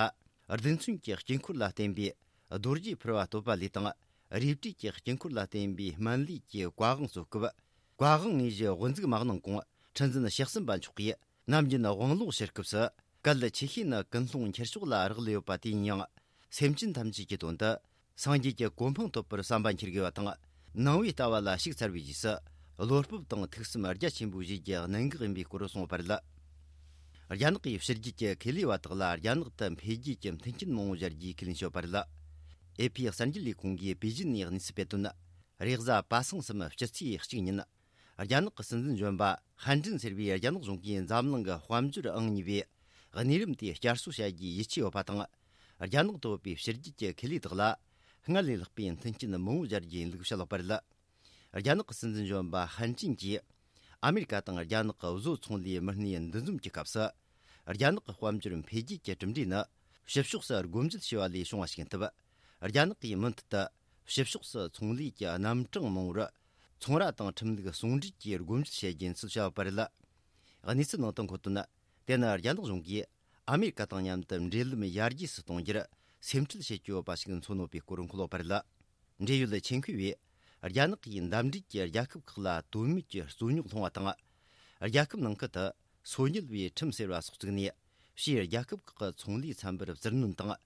རྡུལ་ཚོན་གྱི་དཀྱིལ་འཁོར་ལ་བརྟེན་པའི་རྡོ་རྗེ་ཕུར་བུའི་བསྟོད་པ་ལས་དང་། རས་བྲིས་ཀྱི་དཀྱིལ་འཁོར་ལ་བརྟེན་པའི་སྨན་བླའི་གི་བཀའ་དབང་གཙོ་སྐབས། བཀའ་དབང་དངོས་གཞི་དབུ་འཛུགས་མ་གནང་གོང་། ཁྲི་འཛིན་ཞེ་གསུམ་པ་མཆོག་གིས་ནམ་རྒྱུན་དབང་ལུང་ཕྱིར་སྐབས་སུ། གལ་ཆེ་ཤོས་ནི་ཀུན་སློང་འཁྱེར་ཕྱོགས་ལ་རག་ལས་ཡོད་པ་དེ་ཡིན་ཡང་། སེམས་ཅན་ཐམས་ཅད་ཀྱི་དོན་དུ་སངས་རྒྱས་ཀྱི་གོ་འཕང་ཐོབ་པར་བསམ་པ་འཁྱེར་དགོས་པ་དང་། ནང་པའི་ལྟ་བ་ལ་ཞུགས་ཚར་བའི་རྗེས་སུ་བློ་སྤོབས་དང་ཐུགས་སེམས་རྒྱ་ཆེན་པོས་བཞེས་རྒྱུ་གནད་འགག་ཡིན་པའི་སྐོར་གསུངས་པ་རེད། རྒྱ་ནག་གི་ཕྱི་རྒྱལ་གྱི་ཁེ་ལས་པ་དག་ལ་རྒྱ་ནག་ཏུ་འཕེལ་རྒྱས་ཀྱི་མཐུན་རྐྱེན་མང་པོ་སྦྱར་རྒྱུའི་ཁས་ལེན་བྱས་པ་རེད། ཨེ་ཕི་གསར་འགྱུར་ལས་ཁུངས་ཀྱིས་པེ་ཅིན་ནས་གནས་ཚུལ་སྤེལ་དོན། རེས་གཟའ་པ་སངས་སམ་སྤྱི་ཚེས་གཅིག་ཉིན། རྒྱ་ནག་གི་སྲིད་འཛིན་གཞོན་པ་ཧན་ཀྲིན་ཟེར་བའི་རྒྱ་ནག་གཞུང་གིས་འཛམ་གླིང་གི་དཔལ་འབྱོར་ཨང་གཉིས་པའི་གནས་རིམ་དེ་བསྐྱར་གསོ་བྱ་རྒྱུའི་ཡིད་ཆེས་ཡོད་པ་དང་། རྒྱ་ནག་ཏུ་ཡོད་པའི་ཕྱི་རྒྱལ་གྱི་ཁེ་ལས་དག་ལ་སྔར་ལས་ལྷག་པའི་མཐུན་རྐྱེན་མང་པོ་སྦྱར་རྒྱུ་ཡིན་ལུགས་བཤད་ཡོད་པ་རེད། རྒྱ་ནག་གི་སྲིད་འཛིན་གཞོན་པ་ཧན་ཀྲིན་གྱིས་ཨ་མེ་རི་ཀ་དང་རྒྱ་ནག་གི་བཟོ་ཚོང་ལས་མི་སྣའི་འདུ་འཛོམས་ཀྱི་སྐབས་སུ། རྒྱ་ནག་གི་དཔལ་འབྱོར་འཕེལ་རྒྱས་ཀྱི་གྲུབ་འབྲས་ནི་ཕྱི་ཕྱོགས་སུ་སྒོ་འབྱེད་བྱས་པ་ལས་བྱུང་བ་ཞིག་ཡིན་སྟབས། རྒྱ་ནག་གིས་མུ་མཐུད་དུ་ཕྱི་ཕྱོགས་སུ་ཚོང་ལས་ཀྱི་རྣམ་གྲངས་མང་པོར་ཚོང་ར་དང་ཁྲིམས་ལུགས་ཟུང་འབྲེལ་གྱིས་སྒོ་འབྱེད་བྱེད་རྒྱུ་ཡིན་ཚུལ་བཤད་ཡོད་པ་རེད། གནས་ཚུལ་ནང་དུ་འཁོད་དོན། དེ་ནི་རྒྱ་ནག་གཞུང་གིས་ཨ་མེ་རི་ཀ་དང་མཉམ་དུ་འབྲེལ་ལམ་ཡར་རྒྱས་སུ་གཏོང་རྒྱུར་སེམས་ཁྲལ་བྱེད་ཀྱི་ཡོད་པ་ཞིག་མཚོན་ཡོད་པའི་སྐོར་འཁོད་ཡོད་པ་རེད། འབྲེལ་ཡོད་ཆེད་མཁས་པས་རྒྱ་ནག་གིས་འདབས་འབྲེལ་གྱི་རྒྱལ་ཁབ་ཁག་ལ་དོན་མེད་ཀྱི་རྩོད་རྙོག་སློང་བ་དང་། རྒྱལ་ཁབ་ནང་ཁུལ་དུ་སོ་ཉུལ་བའི་ཁྲིམས་ཟེར་བ་སོགས་བཙུགས་ནས། ཕྱིའི་རྒྱལ་ཁབ་ཁག་གི་ཚོང་ལས་ཚན་པར་བཙིར་གནོན་དང་།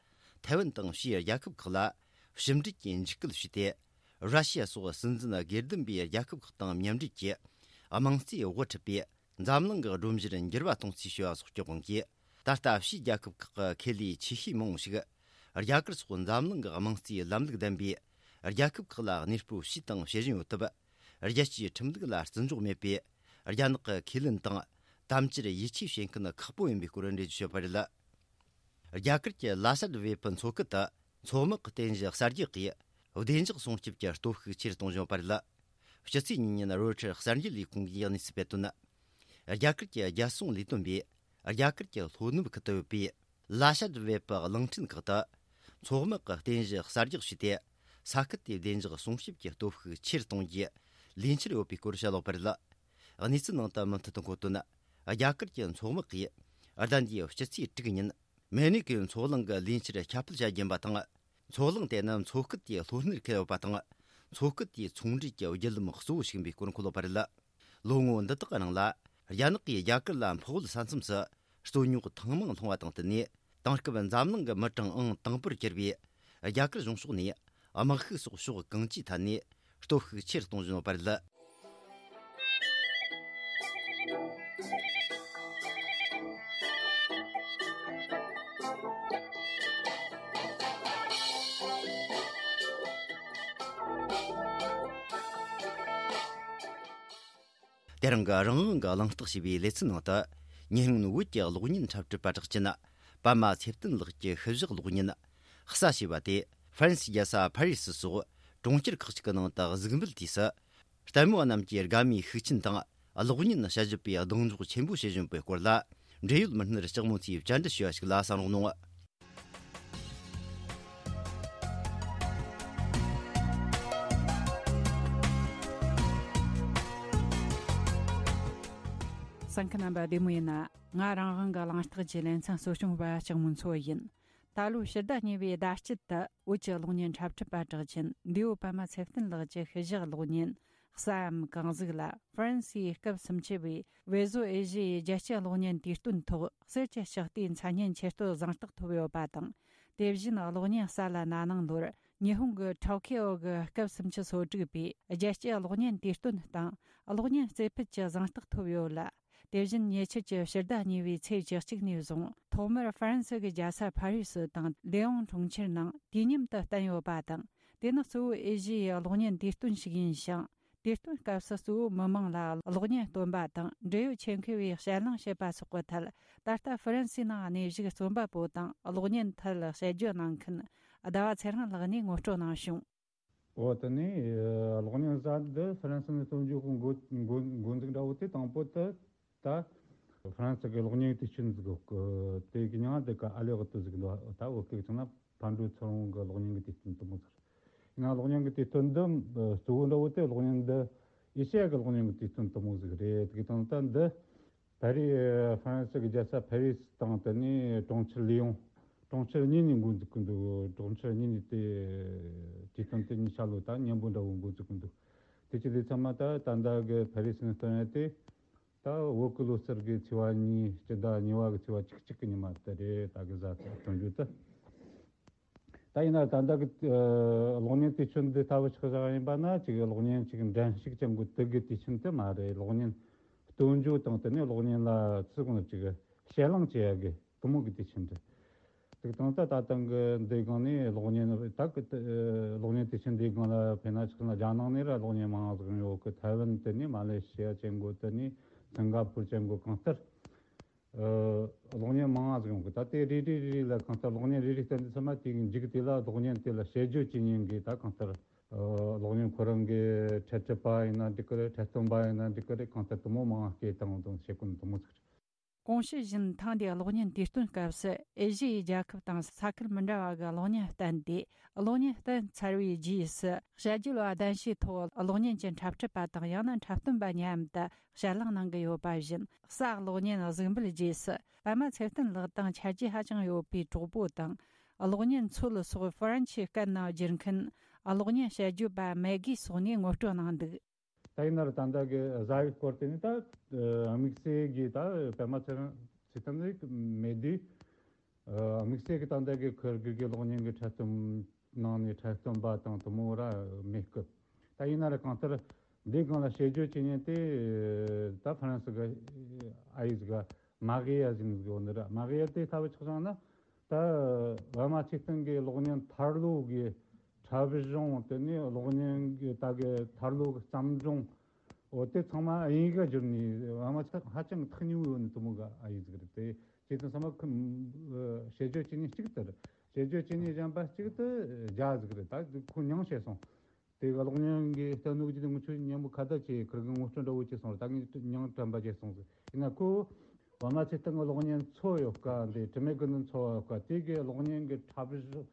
ཐའེ་ཝན་དང་ཕྱིའི་རྒྱལ་ཁབ་ཁག་ལ་ཕྱི་འབྲེལ་གྱི་འཇིགས་སྐུལ་བྱས་ཏེ། ར་ཤི་ཡ་སོགས་སྲིད་འཛིན་སྒེར་སྡེམ་པའི་རྒྱལ་ཁབ་ཁག་དང་མཉམ་འབྲེལ་གྱིས་དམངས་གཙོའི་དབུ་ཁྲིད་པས། འཛམ་གླིང་གི་སྒྲོམ་གཞིར་འགྱུར་བ་གཏོང་རྩིས་བྱས་པ་སོགས་ཀྱི་དབང་གིས། ད་ལྟ་ཕྱིའི་རྒྱལ་ཁབ་ཁག་གི་ཁེ་ལས་ཆེ་ཤོས་མང་བོ་ཞིག་རྒྱ་གར་སོགས་འཛམ་གླིང་གི་དམངས་གཙོའི་ལམ་ལུགས་ལྡན་པའི་རྒྱལ་ཁབ་ཁག་ལ་གནས་སྤོ་བྱས་དང་བྱེད་བཞིན་ཡོད་སྟབས། རྒྱལ་སྤྱིའི་ཁྲིམས་ལུགས་ལ་བརྩི་འཇོག་མེད་པའི་རྒྱ་ནག་གི་ཁས་ལེན་དང་དམ་བཅར་ཡིད་ཆེས་བྱེད་མཁན་ཁག་པོ་ཡིན་པའི་སྐོར་འགྲེལ་བརྗོད་བྱས་པ་རེད། རྒྱ་གར་གྱི་ལ་ཤ་ཏི་བེ་ཕུ་མཚོ་ཁུལ་དུ་མཚོ་དམག་གི་རྟེན་གཞི་གསར་རྒྱག་གིས་བདེ་འཇགས་སྲུང་སྐྱོབ་ཀྱི་སྟོབས་ཤུགས་ཆེ་རུ་གཏོང་བཞིན་ཡོད་པ་རེད། སྤྱི་ཚེས་གཉིས་ཉིན་རོའི་ཊར་གསར་འགྱུར་ལས་ཁུངས་ཀྱིས་གནས་ཚུལ་སྤེལ་དོན། རྒྱ་གར་གྱི་རྒྱལ་སྲུང་ལས་དོན་པས་རྒྱ་གར་གྱི་ལྷོ་ནུབ་ཁུལ་དུ་ཡོད་པའི་ལ་ཤ་ཏི་བེ་ཕུ་གླིང་ཕྲན་ཁག་ཏུ་མཚོ་དམག་གི་རྟེན་གཞི་གསར་རྒྱག་བྱས་ཏེ། ས་ཁུལ་དེའི་བདེ་འཇགས་སྲུང་སྐྱོབ་ཀྱི་སྟོབས་ཤུགས་ཆེ་རུ་གཏོང་རྒྱུའི་ལས་འཆར་ཡོད་པའི་སྐོར་བཤད་ཡོད་པ་རེད། གནས་ཚུལ་ནང་དུ་མུ་མཐུད་དུ་འཁོད་དོན། རྒྱ་གར་གྱི་མཚོ་དམག་གིས་ཟླ་འདིའི་སྤྱི་ཚེས་དྲུག་ཉིན་མེ་ནི་ཀའི་མཚོ་གླིང་གི་ལས་འཆར་ཁྱབ་སྤེལ་བྱ་རྒྱུ་ཡིན་པ་དང་། མཚོ་གླང་དེ་ནི་མཚོ་སྐད་དེའི་ལྷོ་སྣེར་ཁེལ་ཡོད་པ་དང་། མཚོ་སྐད་དེའི་ཚོང་འབྲེལ་གྱི་བརྒྱུད་ལམ་གཙོ་བོ་ཞིག་ཡིན་པའི་སྐོར་འཁོད་ཡོད་པ་རེད། ལོ་ངོ་འདི་དག་གི་ནང་ལ། རྒྱ་ནག་གིས་རྒྱ་གར་ལ་འཕགས་བོད་ས་མཚམས་སུ་རྩོད་རྙོག་ཐེངས་མང་སློང་བ་དང་བསྟུན་ནས། དེང་སྐབས་འཛམ་གླིང་གི་མི་གྲངས་ཨང་དང་པོར་གྱུར་པའི་རྒྱ་གར་གཞུང་ཕྱོགས་ནས། དམག་ཤུགས་སོགས་ཕྱོགས་གང་ཅིའི་ཐད་ནས་སྟོབས་ཤུགས་ཆེ་རུ་གཏོང་བཞིན་ཡོད་པ་རེད། དེ་རིང་གི་རང་དབང་གི་གླེང་སྟེགས་ཞེས་པའི་ལེ་ཚན་ནང་དུ། ཉེ་སྔོན་བོད་ཀྱི་གློག་བརྙན་འཁྲབ་ཁྲིད་པ་གྲགས་ཅན། པདྨ་ཚེ་བརྟན་ལགས་ཀྱི་ཤུལ་བཞག་གློག་བརྙན། གསའ་ཞེས་པ་དེ། ཧྥ་རན་སིའི་རྒྱལ་ས་ཕ་རི་སི་སོགས་གྲོང་ཁྱེར་ཁག་ཅིག་གི་ནང་དུ་གཟིགས་འབུལ་དུས་སུ། ལྟད་མོ་བ་རྣམས་ཀྱིས་དགའ་མོས་ཤུགས་ཆེན་དང་། གློག་བརྙན་དཔྱད་ཞིབ་པས་གདེང་འཇོག་ཆེན་པོ་བྱེད་བཞིན་པའི་སྐོར་ལ། འབྲེལ་ཡོད་མི་སྣར་ལྕགས་མོ་མཚོས་བཅར་འདྲི་ཞུས་པ་ཞིག་ལ་གསན་རོགས་གནང་། གསན་མཁན་རྣམ་པ་བདེ་མོ་ཡིན་ན། ང་རང་དབང་གི་གླེང་སྟེགས་ཀྱི་ལེ་ཚན་གཙོ་སྐྱོང་བ་ལྕགས་མོ་མཚོ་ཡིན། ད་ལོའི་ཕྱི་ཟླ་གཉིས་པའི་ཟླ་དཀྱིལ་དུ་བོད་ཀྱི་གློག་བརྙན་འཁྲབ་ཁྲིད་པ་གྲགས་ཅན་འདས་པོ་པདྨ་ཚེ་བརྟན་ལགས་ཀྱི་ཤུལ་བཞག་གློག་བརྙན་གསའམ་གང་གཟིགས་ལ། ཧྥ་རན་སིའི་སྐབས་སུམ་ཅུ་པའི་བྷེ་ཟོ་ཨེ་ཤི་ཡའི་རྒྱལ་སྤྱིའི་གློག་བརྙན་དུས་སྟོན་ཐོག་གསེར་གྱི་ལྕགས་རྟའི་མཚན་སྙན་ཆེད་བསྟོད་གཟེངས་རྟགས་ཐོབ་ཡོད་པ་དང་། དེ་བཞིན་གློག་བརྙན་གསའ་ལ་ན་ནིང་ལོར་ཉི་ཧོང་གི་ཊོ་ཀི་ཨོ་གི་སྐབས་སུམ་ཅུ་སོ་དྲུག་པའི་རྒྱལ་སྤྱིའི་གློག་བརྙན་དུས་སྟོན་སྟེང་གློག་བརྙན་རྩེ་ཕུད་ཀྱི་གཟེངས་རྟགས་ཐོབ་ཡོད་ལ། དེ་བཞིན་ཉེ་ཆར་གྱི་ཕྱི་ཟླ་གཉིས་པའི་ཚེས་བཅུ་གཅིག་ནས་བཟུང་ཐོག་མར་ཧྥ་རན་སི་གི་རྒྱལ་ས་ཕ་རི་སི་དང་ལེ་ཨོང་གྲོང་ཁྱེར་ནང་དུས་མཉམ་དུ་བསྟན་ཡོད་པ་དང་། དེ་ནི་གཙོ་བོ་ཨེ་ཤི་ཡའི་གློག་བརྙན་དུས་སྟོན་ཞིག་ཡིན་ཞིང་། དུས་སྟོན་སྐབས་སུ་གཙོ་བོ་མི་མང་ལ་གློག་བརྙན་སྟོན་པ་དང་འབྲེལ་ཡོད་ཆེད་མཁས་པའི་དཔྱད་གླེང་བྱེད་པ་སོགས་ཀྱི་ཐད། ད་ལྟ་ཧྥ་རན་སིའི་ནང་གནས་བཞུགས་རྩོམ་པ་པོ་དང་གློག་བརྙན་ཐད་དཔྱད་བརྗོད་གནང་མཁན་ཟླ་བ་ཚེ་རིང་ལགས་ནས་ངོ་སྤྲོད་གནང་བྱུང་། འོ་དེ་ནས་གློག་བརྙན་གསར་འདི་ཧྥ་རན་སི་ནས་སྟོན་རྒྱུ་གི་འགོ་འགོ་འགོ་འཛུགས་འདྲ་བོ་དེ། དང་པོ་དེ་ད་ཧྥ་རན་སི་གི་གློག་བརྙན་དུས་ཆེན་ཟིག་གི་དེ་གི་མྱིང་དེ་ག་ཨ་ལེ་གི་དུ་ཟིག་འདུག་ད་བོད་སྐད་ཆ་ན་ཕར་འགྲོ་ཚུར་འོང་གི་གློག་བརྙན་གི་དུས་སྟོན་དུ་མོ་ཟེར། ཡིན་ན་གློག་བརྙན་གི་དུས་སྟོན་འདི་གཙོ་བོ་འདྲ་བོ་དེ། གློག་བརྙན་འདི་ཨེ་ཤི་ཡ་གི་གློག་བརྙན་གི་དུས་སྟོན་དུ་མོ་ཟིག་རེད། དེ་གི་དང་ད་འདི། ཕ་རི། ཧྥ་རན་སི་གི་རྒྱལ་ས་ཕ་རི་སི་དང་དེ་ནས་གྲོང་ཁྱེར་ལི་ཡོང་། གྲོང་ཁྱེར་གཉིས་ནས་འགོ་འཛུགས་ཀྱི་འདུག་གྲོང་ཁྱེར་གཉིས་ནས་དེ་དུས་སྟོན་དེ་གཉིས་ཆ་ལོ་ད་མཉམ་པོ་འདྲ་བོ་འགོ་འཛུགས་ཀྱི་འདུག་དེ་ཅི་ལས་ཚང་མ་ད་ད་ལྟ་གི་ཕ་རི་སི་ནས་སྟོན་ཡ་དེ། ད་བོད་ཀྱི་ལོ་གསར་གི་ཚེས་པ་གཉིས། སྤྱི་ཟླ་གཉིས་པ་གི་ཚེས་པ་གཅིག་གཅིག་གི་ཉི་མ་དེ་རེད། ད་གི་གཟའ་སྟོན་རྒྱུ་དེ། ད་ཡིན་ན་ད་ལྟ་གི་ཨ་གློག་བརྙན་དུས་ཆེན་འདི་ལྟ་བུ་ཆགས་བཞག་ཡིན་པ་ན། ཅིག་གློག་བརྙན་ཅིག་འགྲན་ཞུགས་ཅན་གོ་དུ་གི་དུས་ཆེན་དེ་མ་རེད། གློག་བརྙན་སྟོན་རྒྱུ་དང་དེ་ནས་གློག་བརྙན་ལ་ཚུལ་གང་ཅིག་དཔྱད་གླེང་བྱེད་ཡ་གི་དུ་མོ་གི་དུས་ཆེན་རེད། དེ་དང་ད་ད་ཐེངས་གི་འདི་སྒང་ནས་གློག་བརྙན་ད་གི་ཨ་གློག་བརྙན་དུས་ཆེན་འདི་སྒང་ལ་དཔེར་ན་ཆགས་ན་རྒྱ་ནག་ནས་ར་གློག་བརྙན་མང་ང་ཟིག་ཡོང་ཡོད་གི། ཐའེ་ཝན་དེ་ནས་མ་ལེ་ཤི་ཡ་ཅན་གོ་དེ་ནས་སིང་ག་པུར་ཅན་གོ་གང་ལྟར། ཨ་གློག་བརྙན་མང་ང་ཟིག་ཡོང་གི། ད་དེ་རེ་རེ་རེ་རེ་ལ་གང་ལྟར་གློག་བརྙན་རེ་རེ་བསྟན་དུས་ཙམ་པ་དེའི་མཇུག་དེ་ལ་གློག་བརྙན་དེ་ལ་དཔྱད་བརྗོད་བྱེད་མཁན་གྱི་ད་གང་ལྟར་ཨ་གློག་བརྙན་ཁོ་རང་གི་འཁྲབ་ཁྲིད་པ་ཡིན་ན་འགྲིག་གི་རེད། འཁྲབ་སྟོན་པ་ཡིན་ན་འགྲིག་གི་རེད། གང་ལྟར་དུ་མོ་མང་ང་སྐད་བཏང་དང་བྱེད་ཀུན་དུ་མོ་ཟིག་རེད། གོང་ཞུས་བཞིན་ཐེངས་འདིའི་གློག་བརྙན་དུས་སྟོན་སྐབས་སུ་ཨེ་ཤི་ཡའི་རྒྱལ་ཁབ་དང་ས་ཁུལ་མི་འདྲ་བ་གི་གློག་བརྙན་བསྟན་ཏེ། གློག་བརྙན་བསྟན་ཚར་བའི་རྗེས་སུ་དཔྱད་བརྗོད་པ་གདན་ཞུའི་ཐོག་གློག་བརྙན་གྱི་འཁྲབ་ཁྲིད་པ་དང་ཡང་ན་འཁྲབ་སྟོན་པ་མཉམ་དུ་དཔྱད་གླེང་གནང་གི་ཡོད་པ་བཞིན། གསའ་གློག་བརྙན་གཟིགས་འབུལ་རྗེས་སུ་པདྨ་ཚེ་བརྟན་ལགས་དང་ཆ་རྒྱུས་ཧ་ཅང་ཡོད་པའི་གྲོགས་པོ་དང་། གློག་བརྙན་མཚོ་ལ་སོགས་ཧྥ་རན་ཆི་སྐད་ནང་བསྒྱུར་མཁན་གློག་བརྙན་དཔྱད་བརྗོད་པ་མེ་གི་སོགས་ནས་ངོ་སྤྲོད་གནང་འདུག་ད་ཡིན་ན་ར་ད་ལྟ་གི་གཟའ་ཡི་སྐོར་དེ་ནི་ད་དམིགས་བསལ་གྱི་ད་པདྨ་ཚེ་རིང་ཚེ་བརྟན་ནི་མེད་དུས། དམིགས་བསལ་གྱི་ད་ལྟ་གི་ཁུར་གི་གི་གློག་བརྙན་གྱི་འཁྲབ་སྟོན་ནང་ནས་འཁྲབ་སྟོན་པ་དང་དུ་མོ་ར་མེད་སྐབས། ད་ཡིན་ན་ར་གང་ལྟར་འདི་སྒང་ལ་དཔྱད་བརྗོད་བྱེད་མཁན་དེ་ད་ཧྥ་རན་སི་གི་ཨ་ཡིག་ག་མ་གི་ཡ་ཟིན་གི་འོ་ནི་ར། མ་གི་ཡ་དེ་ལྟ་བུ་ཆགས་བྱུང་ན། ད་པདྨ་ཚེ་བརྟན་གྱི་གློག་བརྙན་ཐར་ལོ་གི་འཁྲབ་གཞུང་། དེ་ནས་གློག་བརྙན་གྱི་ད་གི་ཐར་ལོ་གི་བརྩམས་སྒྲུང་། འོ་དེ་ཚང་མ་དབྱིན་ཡིག་ག་བསྒྱུར་ནས་པདྨ་ཚེ་བརྟན་ཧ་ཅང་ཐག་ཉེ་བོ་ཡོད་ནི་དུ་མོ་གི་ཨ་ཡིག་ཟིག་རེད། དེ་བྱས་ཙང་ཚང་མ་ཁོ་དཔྱད་བརྗོད་བྱེད་ནི་གཅིག་ལྟར། དཔྱད་བརྗོད་བྱེད་ནི་གཞན་པ་གཅིག་ཏུ་རྒྱ་ཟིག་རེད། ད་ཁོ་མྱང་བྱས་སོང་། དེ་གློག་བརྙན་གྱི་ལྟ་ནོ་གི་དེ་ངུ་ཆོས་མཉམ་པོ་ཁ་བརྡ་བྱས། ཁིར་གི་ངོ་སྤྲོད་འདྲ་བོ་བྱས་སོང་ར། ད་ངས་མྱང་དྲན་པ་བྱས་སོང་ཟིག་ཡིན་ན་ཁོ་པདྨ་ཚེ་བརྟན་གྱི་གློག་བརྙན་མཚོ་ཡོད་ཀ། འདི་དྲི་མེད་ཀུན་ཏུ་འཚོ་བ་ཡོད་ཀ། དེ་གི་གློག་བརྙན་གྱི་འཁྲབ་གཞུང་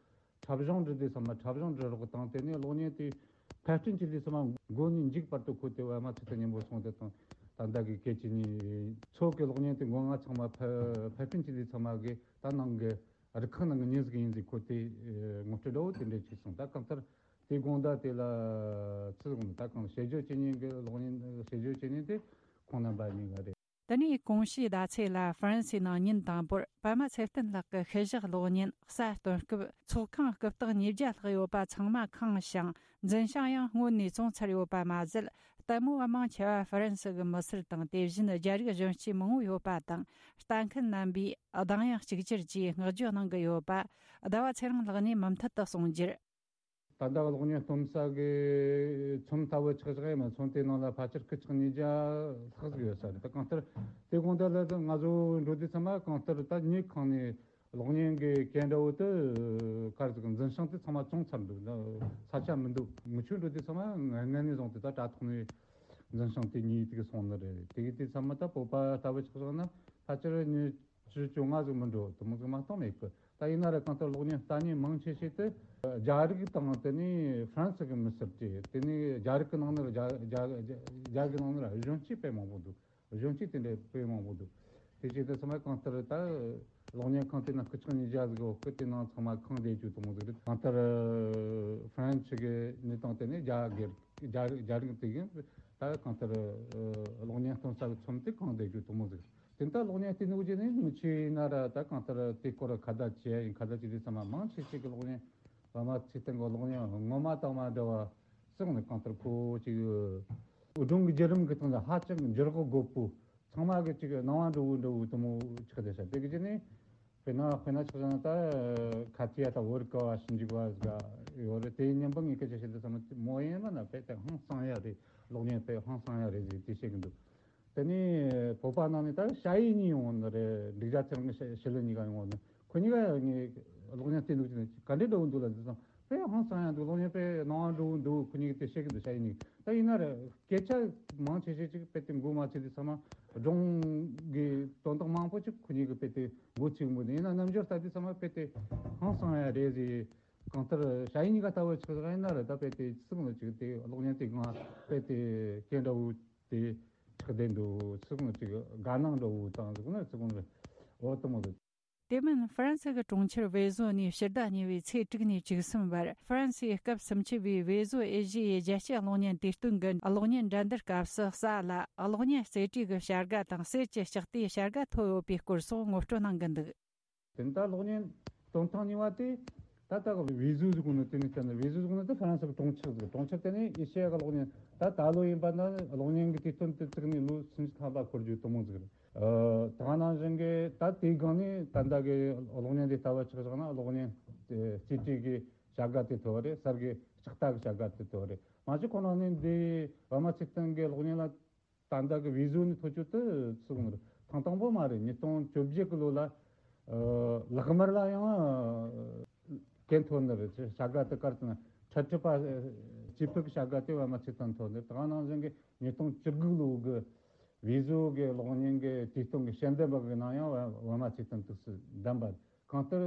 འཁྲབ་གཞུང་འབྲི་དུས་ཙམ་པ་འཁྲབ་གཞུང་འབྲི་རོགས་དང་། དེ་ནས་གློག་བརྙན་དེ་ཕབ་སྐྲུན་བྱེད་དུས་ཙམ་པ་འགོ་ནས་མཇུག་བར་དུ་ཁོ་དེ་པདྨ་ཚེ་བརྟན་མཉམ་པོ་སོང་། དེ་དང་ད་ལྟ་གི་སྐད་ཅིག་ཉིད་མཚོ་གི་གློག་བརྙན་དེ་མགོ་རྔ་ཚང་མ་ཕབ་ཕབ་སྐྲུན་བྱེད་དུས་ཙམ་པ་གི་ད་ནང་གི་ རུ་ཁག་ནང་གི་མྱི་ཟིག་ཡིན་ཟིག་ཁོ་དེ་ངོ་སྤྲོད་འདྲ་བོ་དེ་འདྲ་བྱས་སོང་། ད་གང་ལྟར་དེ་དགོང་དག་དེ་ལ་ཚུར་འོང་ད་གང་བྱེད་སྦྱོར་བྱེད་མཁན་གྱི་གློག་བརྙན་བྱེད་སྦྱོར་བྱེད་མཁན་དེ་ཁོང་རྣམ་པ་གཉིས་ཀ་རེད། དེ་ནས་གོང་ཞུས་བརྡ་ཚེ་ལ་ཧྥ་རན་སིའི་ནང་ཉིན་དང་པོར་པད་མ་ཚེ་བརྟན་ལགས་ཀྱི་ཤུལ་བཞག་གློག་བརྙན་གསར་སྟོན་སྐབས་ཚོགས་ཁང་སྐུ་རྟགས་ཉིས་བརྒྱ་ལྷག་ཡོད་པ་ཚང་མ་ཁེངས་ཤིང་འཛིན་བྱང་ཡང་སྔོན་ནས་བཙོང་ཚར་ཡོད་པ་མ་ཟད། ལྟད་མོ་བ་མང་ཆེ་བ་ཧྥ་རན་སི་གི་མི་སེར་དང་དེ་བཞིན་རྒྱ་རིགས་གཞོན་སྐྱེས་མང་བོ་ཡོད་པ་དང་། ལྟ་མཁན་རྣམ་པས་གདངས་དབྱངས་གཅིག་གྱུར་གྱིས་བསྔགས་བརྗོད་གནང་གི་ཡོད་པ་ཟླ་བ་ཚེ་རིང་ལགས་ནས་མུ་མཐུད་དུ་གསུངས་རྒྱུར། ད་ལྟ་གློག་བརྙན་སྟོན་ས་གི་ཚོམས་ལྟ་བུ་ཆགས་བཞག་ཡིན་ན་ཚོམས་དེའི་ནང་ལ་ཕལ་ཆེར་སྐུ་ཆག་ཉིས་བརྒྱ་ལྷག་ཟིག་ཡོད་ས་རེད། ད་གང་ལྟར་དེ་དགོང་དག་ལ་ང་ཚོ་འགྲོ་དུས་ཚང་མ་གང་ལྟར་ད་ཉིན་གང་ནས་གློག་བརྙན་གྱི་གན་འདྲ་བོ་དེ་གར་ཟིག་འཛིན་བྱང་དེ་ཚང་མ་བཙོང་ཚར་འདུག་ས་ཆ་མི་འདུག་མི་ཆོས་འགྲོ་དུས་ཚང་མ་ངན་ངན་ནས་བཟུང་དེ་ད་དྲ་ཐོག་ནས་འཛིན་བྱང་དེ་ཉིད་དེ་གི་སོང་ནི་རེད། དེ་གི་དུས་ཚང་མ་ད་བོད་པ་ལྟ་བུ་ཆགས་བཞག་ན་ཕལ་ཆེར་ཉི་བཅུ་བཅོ་ལྔ་ཟིག་མི་འགྲོ་དེ་མོ་ཟིག་མ་གཏོགས་མེད་གི། ད་ཡིན་ན་ར་གང་ལྟར་གློག་བརྙན་ལྟ་མཁན་མང་ཆེ་ཤོས་དེ་རྒྱ་རིགས་དང་དེ་ནས་ཧྥ་རན་སི་གི་མི་སེར་དེ་དེ་ནས་རྒྱ་རིགས་ཀྱི་ནང་ནས་ར་རྒྱ་རྒྱ་རྒྱ་རྒྱ་གི་ནང་ནས་ར་གཞོན་སྐྱེས་དཔེ་མང་པོ་འདུག་གཞོན་སྐྱེས་དེ་འདྲ་དཔེ་མང་པོ་འདུག་དེ་བྱས་ཏེ་ཚང་མ་གང་ལྟར་ད་གློག་བརྙན་ཁང་དེ་ན་སྐུ་ཆག་ཉིས་བརྒྱ་ཟིག་ཡོད་གི། དེ་ནང་ཚང་མ་ཁེངས་བསྡད་རྒྱུ་དེ་མོ་ཟིག་རེད། གང་ལྟར་ཧྥ་རན་སི་གི་གནས་སྟངས་དེ་ནས་རྒྱ་སྒེར་རྒྱ་རྒྱ་རིགས་དེ་གིས་ད་གང་ལྟར་གློག་བརྙན་སྟོན་ས་གི་ཚོམས་དེ་ཁེངས་བསྡད་རྒྱུ་དེ་མོ་ཟིག་དེ་ལྟར་གློག་བརྙན་བལྟས་ནོ་རྗེས་ནས་མི་ཆོས་ཡིན་ན་ར་ད་གང་ལྟར་དེ་སྐོར་ཁ་བརྡ་བྱས་ཡིན། ཁ་བརྡ་བྱས་དུས་ཚང་མ་མང་ཆེ་ཤོས་ཀྱི་གློག་བརྙན་པད་མ་ཚེ་བརྟན་གྱི་གློག་བརྙན་ངོ་མ་དང་མ་འདྲ་བ་བསགས་ནས་གང་ལྟར་ཁོ་ཅིག་སྒྲུང་གི་བརྒྱུད་རིམ་གྱི་སྟེང་ལ་ཧ་ཅང་འགྱུར་བ་དགོས་པོ་ཚང་མ་གི་ཅིག་སྣང་བ་འགྲོ་བོ་འགྲོ་བོ་དེ་མོ་ཆགས་བསྡད་ཤག་དེ་གི་རྗེས་ནས་དཔེར་ན་དཔེར་ན་ཆ་བཞག་ན་ད་ཁ་ཐི་ཡ་དང་བོད་ཀ་བ་ཞིབ་འཇུག་པ་ཟིག་ཡོད་རེད། དེའི་མཉམ་པོ་ངས་སྐད་ཆ་བཤད་དུས་ཙམ་མོ་ཡིན་ན་ན་དཔེ་དེ་ཧང་སང་ཡ་རེད། གློག་བརྙན་དཔེ་ཧང་སང་ཡ་རེད་ཟེར་དེ་བཤད་གི་འདུག་དེ་ནས་བོད་པ་ནང་ནས་ད་ཞ་ཡི་གཉིས་ཡོང་ནི་རེད། འབྲུག་རྒྱལ་ཚེ་རིང་གི་ཞི་ལི་གཉིས་ཀ་ཡོང་ནི་ཁོ་གཉིས་ཀ་ངས་གློག་བརྙན་བལྟས་འདུག་ཅེ་ན་ག་འདྲའི་འདྲ་བོ་འདུག་ལ་ཟེར་སོང་། དཔེ་ཧང་སང་ཡ་འདུག་གློག་བརྙན་དཔེ་སྣང་བ་འགྲོ་བོ་འདུག་ཁོ་གཉིས་ཀྱིས་དེ་བཤད་གི་འདུག་ཞ་ཡི་གཉིས་ཀྱིས། ད་ཡིན་ན་རེད་སྐད་ཆ་མང་ཆེ་ཤོས་ཅིག་དཔེ་དེ་མགོ་མ་ཚོས་དུས་ཚང་མ་སྒྲུང་གི་དོན་དག་མང་པོ་ཅིག་ཁོ་གཉིས་ཀྱིས་དཔེ་དེ་མགོ་ཚོས་མོ་དེ་ཡིན་ན་རྣམ་འགྱུར་ལྟ་དུས་ཚང་མ་དཔེ་དེ་ཧང་སང་ཡ་རེད་ཟེར། གང་ལྟར་ཞ་ཡི་གཉིས་ཀ་ལྟ་བུ་ཆགས་ཡིན་ན་རེད། ད་དཔེ་དེ་ཚིག་ནི་ཅིག་དེ་གློག་བརྙན་དེ་གང་དཔེ་དེ་སྐད་འདྲ་བོ་དེ་ཆགས་བསྡད་འདུག་ཚིག་ནི་ཅིག་དགའ་སྣང་འདྲ་བོ་དང་ཟེར་ན་ཚིག་ནི་འོ་དེ་མོ་རེད། དེ་མིན་ཧྥ་རན་སི་གི་གྲོང་ཁྱེར་ཝེ་ཟོ་ནས་ཕྱི་ཟླ་གཉིས་པའི་ཚེས་དྲུག་ནས་བཅུ་གསུམ་བར་ཧྥ་རན་སིའི་སྐབས་སུམ་ཅུ་པའི་ཝེ་ཟོ་ཨེ་ཤི་ཡའི་རྒྱལ་སྤྱིའི་གློག་བརྙན་དུས་སྟོན་གྱི་གློག་བརྙན་འགྲན་བསྡུར་སྐབས་སུ་གསལ་ལ་གློག་བརྙན་རྩེ་གྲས་ཀྱི་བྱ་དགའ་དང་གསེར་གྱི་ལྕགས་རྟའི་བྱ་དགའ་ཐོབ་ཡོད་པའི་སྐོར་སོགས་ངོ་སྤྲོད་གནང་གི་འདུག་དེ་ནི་ད་གློག་བརྙན་སྟོན་ཐེངས་གཉིས་པ་དེ་ད་ལྟ་གི་ཝེ་ཟོ་ཟེར་གོ་ནོ་དེ་ནི་བསྟན་ནས་ཝེ་ཟོ་ཟེར་གོ་ནོ་དེ་ཧྥ་རན་སི་གི་གྲོང་ཁྱེར་ཟིག་གྲོང་ཁྱེར་དེ་ནི་ཨེ་ཤེ་ཡ་གི་གློག་བརྙན་ད་ད་ལོ་ཡིན་པ་ན་གློག་བརྙན་གི་དུས་སྟོན་དུ་བཙུགས་ནས་ལོ་སུམ་ཅུ་ཐམ་པ་འཁོར་རྒྱུ་དེ་མོ་ཟིག་རེད། ཨ། དེ་ག་ནང་བཞིན་གི་ད་དེའི་སྒང་ནས་ད་ལྟ་གི་གློག་བརྙན་དེ་ལྟ་བུ་ཆ་བཞག་ན་གློག་བརྙན་རྩེ་གྲས་གི་བྱ་དགའ་དེ་ཐོབ་པ་རེད། གསེར་གི་ལྕགས་རྟ་གི་བྱ་དགའ་དེ་ཐོབ་པ་རེད། མ་གཞི་ཁོ་ན་ནི་འདི་པད་མ་ཚེ་བརྟན་གི་གློག་བརྙན་ལ་ད་ལྟ་གི་ཝེ་ཟོ་ནས་ཐོབ་རྒྱུ་དེ་ཚུགས་ནི་རེད། ཐེངས་དང་པོ་མ་རེད། ཉིས་སྟོང་བཅོ་བརྒྱད་གི་ལོ་ལ་ཨ་ལག་དམར་ལ་ཡང་ཨ་གན་ཐོབ་ནི་རེད། བྱ་དགའ་དེ་གར་དུ་ན་འཕྲལ་འཕྲུལ་པ་སྐྱེས་ཕུད་ཀྱི་བྱ་དགའ་དེ་པད་མ་ཚེ་བརྟན་ཐོབ་ནི་རེད། དེ་ག་ནང་བཞིན་གི་ཉིས་སྟོང་བཅུ་དགུ་ལོ་གི་ཝེ་ཟོ་གི་གློག་བརྙན་གི་དུས་སྟོན་གི་ཞལ་འདེབས་པ་གི་ནང་ཡང་པད་མ་ཚེ་བརྟན་དུས་སུ་བདམས་པ་རེད། གང་ལྟར་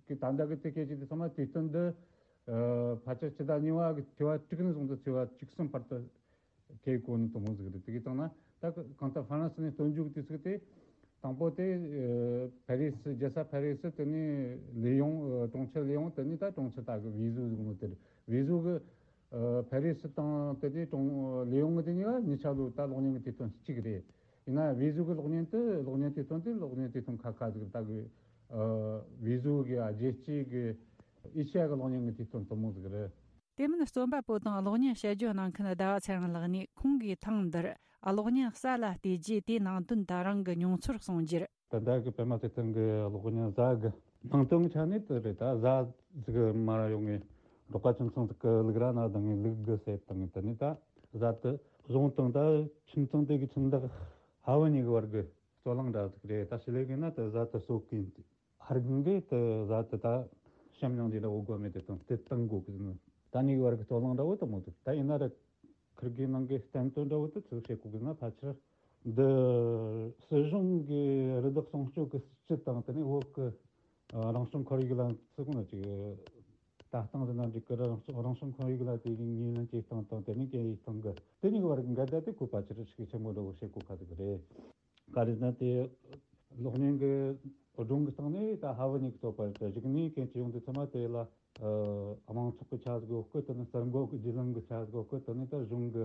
གི་ད་ལྟ་གི་དེ་སྐད་ཅིག་དེ་ཚང་མ་དུས་སྟོན་འདི་ཨ་ཕལ་ཆེར་ཕྱི་ཟླ་གཉིས་པ་གི་ཚེས་པ་དྲུག་ནས་བཟུང་སྟེ་ཚེས་པ་བཅུ་གསུམ་བར་དུ་ཁེལ་གོ་ནི་དེ་མོ་ཟིག་རེད། དེ་གི་སྟེང་ན་ད་གང་ལྟར་ཧྥ་རན་སི་ནས་སྟོན་རྒྱུ་གི་དུས་ཚིགས་དེ་དང་པོ་དེ་ཨ་ཕ་རི་སི་རྒྱལ་ས་ཕ་རི་སི། དེ་ནས་ལི་ཡོང་ཨ་གྲོང་ཁྱེར་ལི་ཡོང་། དེ་ནས་ད་གྲོང་ཁྱེར་ད་གི་ཝེ་ཟོ་ཟིག་ནོ་དེ་རེད། ཝེ་ཟོ་གི་ཨ་ཕ་རི་སི་དང་དེ་ནས་གྲོང་ལི་ཡོང་གི་དེ་གཉིས་ཀ་གཉིས་ཆ་ལོ་ད་གློག་བརྙན་གི་དུས་སྟོན་གཅིག་རེད། ཡིན་ན་ཝེ་ཟོ་གི་གློག་བརྙན་དེ་གློག་བརྙན་དུས་སྟོན་དེ་གློག་བརྙན་དུས་སྟོན་ཁ་ཁ་ཟིག་རེད། ད་གི་ཨ་ཝེ་ཟོ་གི་རྒྱལ་སྤྱིའི་གི་ཨེ་ཤེ་ཡ་གི་གློག་བརྙན་གི་དུས་སྟོན་དེ་མོ་ཟིག་རེད། དེ་མིན་རྩོམ་པ་པོ་དང་གློག་བརྙན་དཔྱད་བརྗོད་གནང་མཁན་ཟླ་བ་ཚེ་རིང་ལགས་ནས་ཁོང་གིས་ཐེངས་འདིར་གློག་བརྙན་གསར་ལ་བལྟས་རྗེས་དེའི་ནང་དོན་དང་རང་གི་མྱོང་ཚོར་གསུངས་རྒྱུར། ད་ལྟ་གི་པད་མ་ཚེ་བརྟན་གི་གློག་བརྙན་གཟའ་གི་ནང་དོན་གི་ཆ་ནས་དེ་རེད། ད་གཟའ་ཟིག་མར་ཡོང་ངས་འབྲོག་པ་ཁྱིམ་ཚང་ཟིག་གི་ལུག་ར་ན་བཏང་ངས་ལུག་གི་བསད་བཏང་ངས། དེ་ནས་ད་གཟའ་དེ་བཟུང་བཏང་། ད་ཁྱིམ་ཚང་དེ་གི་ཁྱིམ་བདག་ཕ་བུ་གཉིས་གི་བར་གི་རྩོད་གླེང་འདྲ་ཟིག་རེད། ད་ཞི་ལི་གི་ན་དེ་གཟའ་དེ་གསོད་གི་ཡིན་ཟེར། ཕ་རྒན་གིས་དེ་གཟའ་དེ་ད་བཤམས་མྱོང་རྒྱུ་འདྲ་བོ་དགོས་མེད་དེ་དང་དེ་བཏང་དགོས་གི་ཟེར་ནོ། ད་གཉིས་གི་བར་གི་རྩོད་གླེང་འདྲ་བོ་དེ་མོ་འདུག་ད་ཡིན་ན་ར་ཁིར་གི་ནང་གི་བསྟན་དོན་འདྲ་བོ་དེ་ཚུར་བཤད་དགོས་གི་ན་ཕལ་ཆེར་འདི་སྲིད་གཞུང་གི་རི་དྭགས་སྲུང་སྐྱོབ་ཀྱི་སྲིད་ཇུས་དང་དེ་ནས་བོད་ཀྱི་ཨ་རང་སྐྱོང་ཁོར་ཡུག་ལ་ཚུགས་ནས་ཅིག་ལྟ་སྟངས་ཟེར་ན་འགྲིག་གི་ར། རང་སྐྱོང་རང་སྐྱོང་ཁོར་ཡུག་ལ་དེ་ཉེས་ཉེས་ལན་བྱེད་སྟངས་དང་དེ་ནས་གན་ཡིག་སྟངས་ཀྱི་དེ་གཉིས་ཀྱི་བར་གྱི་འགལ་ཟླ་དེ་ཁོ་ཕལ་ཆེར་ཤུགས་ཆེན་པོ་འདྲ་བོ་བཤད་དགོས་ཁ་ཟིག་རེད། ག་རེ་ཟེར་ན་དེ་གློག་བརྙན་གྱི་ སྒྲུང་གི་སྟེང་ནས་ད་ཧ་བུ་ཉིད་ཀྱི་བསྟོད་པ་རེད། གཞུག་ནས་གན་ཅི་ཡོང་དུས་ཚང་མ་དེ་ལ་ཨ་དམངས་ཚོགས་ཀྱི་ཆ་ཟིག་ཡོད་སྐད། དེ་ནས་གསར་འགོད་ཀྱི་བརྒྱུད་ལམ་གྱི་ཆ་ཟིག་ཡོད་སྐད། དེ་ནས་ད་གཞུང་གི་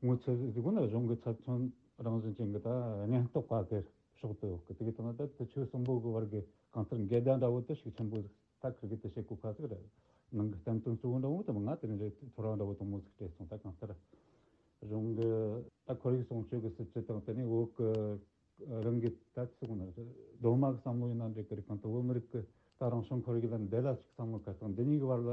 ངོས་ཚབ་ཟིག་ན་གཞུང་གི་ཚབ་མཚོན་རང་བཞིན་ཅན་གྱི་ད་སྙན་རྟོག་པ་གི་ཕྱོགས་སུ་ཡོད་སྐད། དེ་གི་སྟེང་ན་ད་དེ་ཆོས་གསུམ་པོ་གི་བར་གྱི་གང་ལྟར་འགལ་ཟླ་འདྲ་བོ་དེ་ཤུགས་ཆེན་པོ་ཟིག་ད་ཁིར་གི་དེ་བྱེད་གོ་ཁ་ཟིག་རེད། ནང་གི་བསྟན་དོན་གཙོ་བོ་འདྲ་བོ་དེ་མ་ང་དེ་རིང་རེད། ཐོ་རངས་འདྲ་བོ་དུང་མོ་ཟིག་སྤྲད་སོང་། ད་གང་ལྟར་གཞུང་གི་ད་ཁོར་ཡུག་སྲུང་སྐྱོབ་ཀྱི་སྲིད་ཇུས་དང་དེ་ནས་བོད་ཀྱི་རང་གི་ད་ཚིག་ནི་སྡོམ་མ་གི་བསམ་བློ་ཡིན་ན་འགྲིག་གི་རེད། གང་ལྟར་བོད་མི་རིགས་ཀྱི་ད་རང་བྱུང་ཁོར་ཡུག་ལ་འདི་ལ་ཅིག་བསམ་བློ་ག་དང་འདི་གཉིས་ཀྱི་བར་ལ་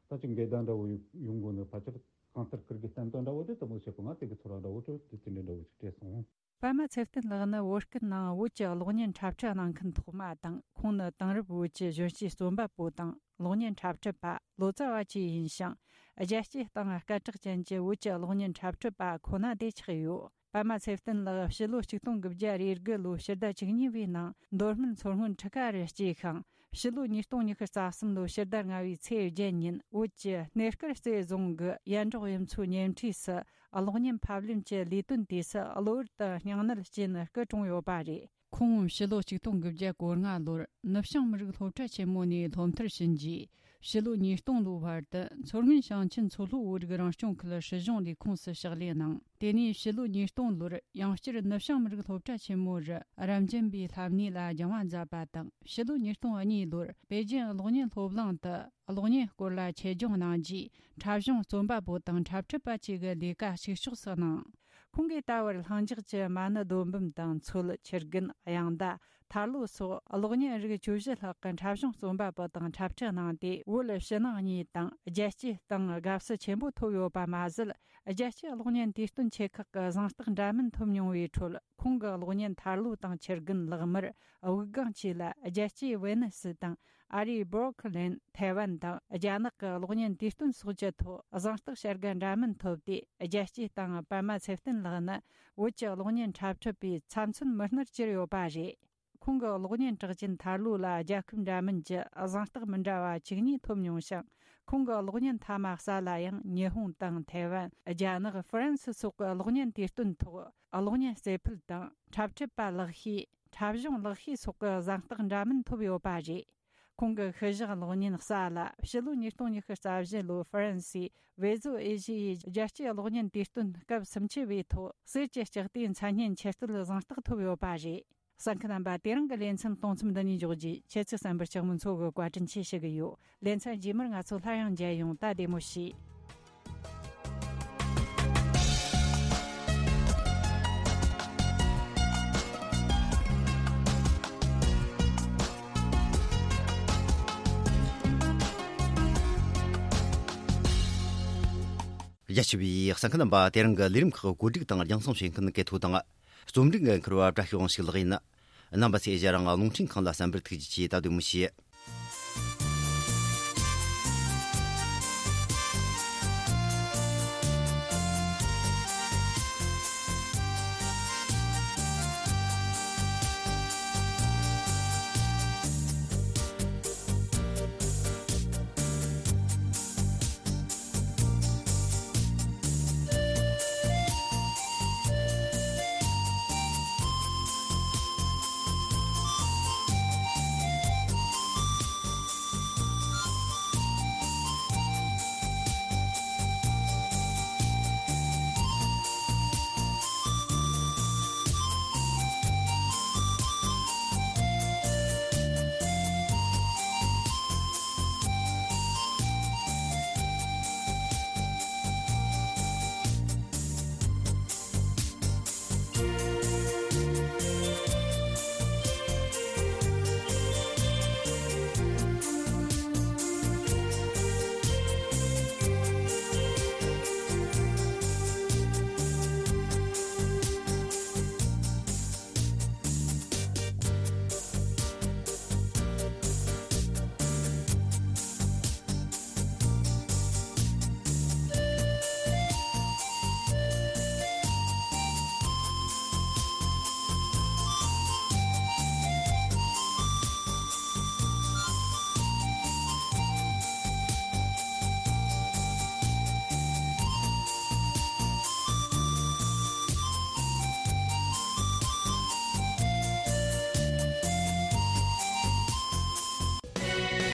ད་ཅིག་འགལ་ཟླ་འདྲ་བོ་ཡོང་ཡོང་དགོས་ནི་ཕལ་ཆེར་གང་ལྟར་ཁིར་གི་བསྟན་དོན་འདྲ་བོ་དེ་དུང་མོ་བྱེད་གོ། ང་དེ་གི་ཚོར་བ་འདྲ་བོ་དེ་དེ་འདྲ་འདྲ་བོ་ཅིག་སྤྲད་སོང་། པདྨ་ཚེ་བརྟན་ལགས་ནི་བོད་སྐད་ནང་བོད་ཀྱི་གློག་བརྙན་འཁྲབ་ཁྲིད་གནང་མཁན་ཐོག་མ་དང་། ཁོང་ནི་དེང་རབས་བོད་ཀྱི་གཞོན་སྐྱེས་རྩོམ་པ་པོ་དང་གློག་བརྙན་འཁྲབ་ཁྲིད་པ་ལོ་ཙཱ་བ་བཅས་ཡིན་ཞིང་། རྒྱལ་སྤྱིའི་སྟེང་སྐད་གྲགས་ཅན་གྱི་བོད་ཀྱི་གློག་བརྙན་འཁྲབ་ཁྲིད་པ་ཁོ་ན་དེ་ཆགས་ཡོད། པདྨ་ཚེ་བརྟན་ལགས་ཕྱི་ལོ་ཆིག་སྟོང་དགུ་བརྒྱ་རེ་དགུ་ལོའི་ཕྱི་ཟླ་བཅུ་གཉིས་པའི་ནང་མདོ་སྨད་མཚོ་སྔོན་ཁྲི་ཀ་རུ་སྐྱེས་ཤིང་། ཕྱི་ལོ་ཉིས་སྟོང་ཉི་ཤུ་རྩ་གསུམ་ལོའི་ཕྱི་ཟླ་ལྔ་བའི་ཚེས་བརྒྱད་ཉིན་བོད་ཀྱི་སྣེ་དཀར་རྩེ་རྫོང་གི་ཡན་འབྲོག་གཡུ་མཚོའི་ཉེ་འཁྲིས་སུ་གློག་བརྙན་ཕབ་ལེན་གྱི་ལས་དོན་དུས་སུ་གློ་བུར་དུ་སྙིང་ནད་སྐྱེས་ནས་སྐུ་གྲོངས་ཡོད་པ་རེད། ཁོང་ཕྱི་ལོ་ཆིག་སྟོང་དགུ་བརྒྱ་གོ་ལྔ་ལོར་ནུབ་བྱང་མི་རིགས་སློབ་གྲྭ་ཆེན་མོ་ནས་སློབ་མཐར་ཕྱིན་རྗེས། ཕྱི་ལོ་ཉིས་སྟོང་ལོའི་བར་དུ་མཚོ་སྔོན་ཞིང་ཆེན་མཚོ་ལྷོ་བོད་རིགས་རང་སྐྱོང་ཁུལ་སྲིད་གཞུང་ལས་ཁུངས་སུ་ཕྱག་ལས་གནང་། དེ་ནས་ཕྱི་ལོ་ཉིས་སྟོང་ལོར་ཡང་བསྐྱར་ནུབ་བྱང་མི་རིགས་སློབ་གྲྭ་ཆེན་མོ་རུ་རབ་འབྱམས་པའི་ལྷ་གནས་ལ་སྦྱང་བ་མཛད་པ་དང་། ཕྱི་ལོ་ཉིས་སྟོང་གཉིས་ལོར་པེ་ཅིན་གློག་བརྙན་སློབ་གླིང་དུ་གློག་བརྙན་སྐོར་ལ་ཆེད་སྦྱོང་གནང་རྗེས། འཁྲབ་གཞུང་རྩོམ་པ་པོ་དང་འཁྲབ་ཁྲིད་པ་བཅས་ཀྱི་ལས་ཀ་གཅིག་ལྕོགས་སུ་གནང་། ཁོང་གིས་ད་བར་ལྷིང་འཇགས་ཀྱི་མ་ཎི་རྡོ་འབུམ་དང་མཚོད། ཆུ་རྒན། དབྱངས་མདའ། ཐར་ལོ་སོགས་གློག་བརྙན་རིགས་བཅུ་བཞི་ལྷག་གི་འཁྲབ་གཞུང་རྩོམ་པ་པོ་དང་འཁྲབ་ཁྲིད་གནང་སྟེ། བོད་ཕྱི་ནང་གཉིས་དང་རྒྱལ་སྤྱིའི་སྟེང་དགའ་བསུ་ཆེན་པོ་ཐོབ་ཡོད་པ་མ་ཟད། རྒྱལ་སྤྱིའི་གློག་བརྙན་དུས་སྟོན་ཆེ་ཁག་གི་གཟེངས་རྟགས་འདྲ་མིན་ཐོབ་མྱོང་བའི་ཁྲོད། ཁོང་གི་གློག་བརྙན་ཐར་ལོ་དང་ཆུ་རྒན། ལག་དམར། དབུགས་ལྒང་བཅས་ལ་རྒྱལ་སྤྱིའི་ཝེ་ནི་སི་དང་ཨ་རིའི་སྦོར་ཁི་ལན། ཐའེ་ཝན་དང་རྒྱ་ནག་གི་གློག་བརྙན་དུས་སྟོན་སོགས་ཀྱི་ཐོག་གཟེངས་རྟགས་བྱ་དགའ་འདྲ་མིན་ཐོབ་སྟེ། རྒྱལ་སྤྱིའི་སྟེང་པདྨ་ཚེ་བརྟན་ལགས་ནི་བོད་ཀྱི་གློག་བརྙན་འཁྲབ་ཁྲིད་པའི་ཚབ་མཚོན་མི་སྣར་གྱུར་ཡོད་པ་རེད། ཁོང་གི་གློག་བརྙན་གྲགས་ཅན་ཐར་ལོ་ལ་རྒྱལ་ཁབ་འདྲ་མིན་གྱི་གཟེངས་རྟགས་མི་འདྲ་བ་བཅུ་གཉིས་ཐོབ་མྱོང་ཞིང་། ཁོང་གི་གློག་བརྙན་མཐའ་མ་གསལ་ལ་ཡང་ཉི་ཧོང་དང་ཐའེ་ཝན། རྒྱ་ནག་ཧྥ་རན་སི་སོགས་ཀྱི་གློག་བརྙན་དུས་སྟོན་ཐོག་གློག་བརྙན་རྩེ་ཕུད་དང་འཁྲབ་ཁྲིད་པ་ལེགས་ཤོས། འཁྲབ་གཞུང་ལེགས་ཤོས་སོགས་ཀྱི་གཟེངས་རྟགས་འདྲ་མིན་ཐོབ་ཡོད་པ་རེད། ཁོང་གི་ཤུལ་བཞག་གློག་བརྙན་གསལ་ལ་ཕྱི་ལོ་ཉིས་སྟོང་ཉི་ཤུ་རྩ་བཞི་ལོའི་ཧྥ་རན་སིའི་ཝེ་ཟོ་ཨེ་ཤི་ཡའི་རྒྱལ་སྤྱིའི་གློག་བརྙན་དུས་སྟོན་སྐབས་སུམ་ཅུ་པའི་ཐོག་གསེར་གྱི་ལྕགས་རྟའི་མཚན་སྙན་ཆེད་བསྟོད་གཟེངས་རྟགས་ཐོབ་ཡོད་པ་རེད། གསན་མཁན་རྣམ་པ། དེ་རིང་གི་ལེ་ཚན་གཏོང་མཚམས་འདི་ནས་འཇོག་རྒྱུ། ཁྱེད་ཚོས་གསན་པར་ལྕགས་མོ་མཚོ་གིས་བཀའ་དྲིན་ཆེ་ཞུ་གི་ཡོད། ལེ་ཚན་རྗེས་མར་ང་ཚོ་སླར་ཡང་མཇལ་ཡོང་། ད་བདེ་མོ་བྱོས། རྒྱ་ཆེ་བའི་གསན་མཁན་རྣམ་པ། དེ་རིང་གི་ལས་རིམ་ཁག་གོ་སྒྲིག་དང་རྒྱང་སྲིང་བྱེད་མཁན་གལ་ཐོ་དང་། རྩོམ་སྒྲིག་འགན་འཁུར་བ་བཀྲ་ཤིས་དབང་ཕྱུག་ལགས་ཡིན། རྣམ་པ་ཚོས་ང་རང་རླུང་འཕྲིན་ཁང་ལ་གསན་པར་ཐུགས་རྗེ་ཆེ། ད་བདེ་མོ་བྱོས།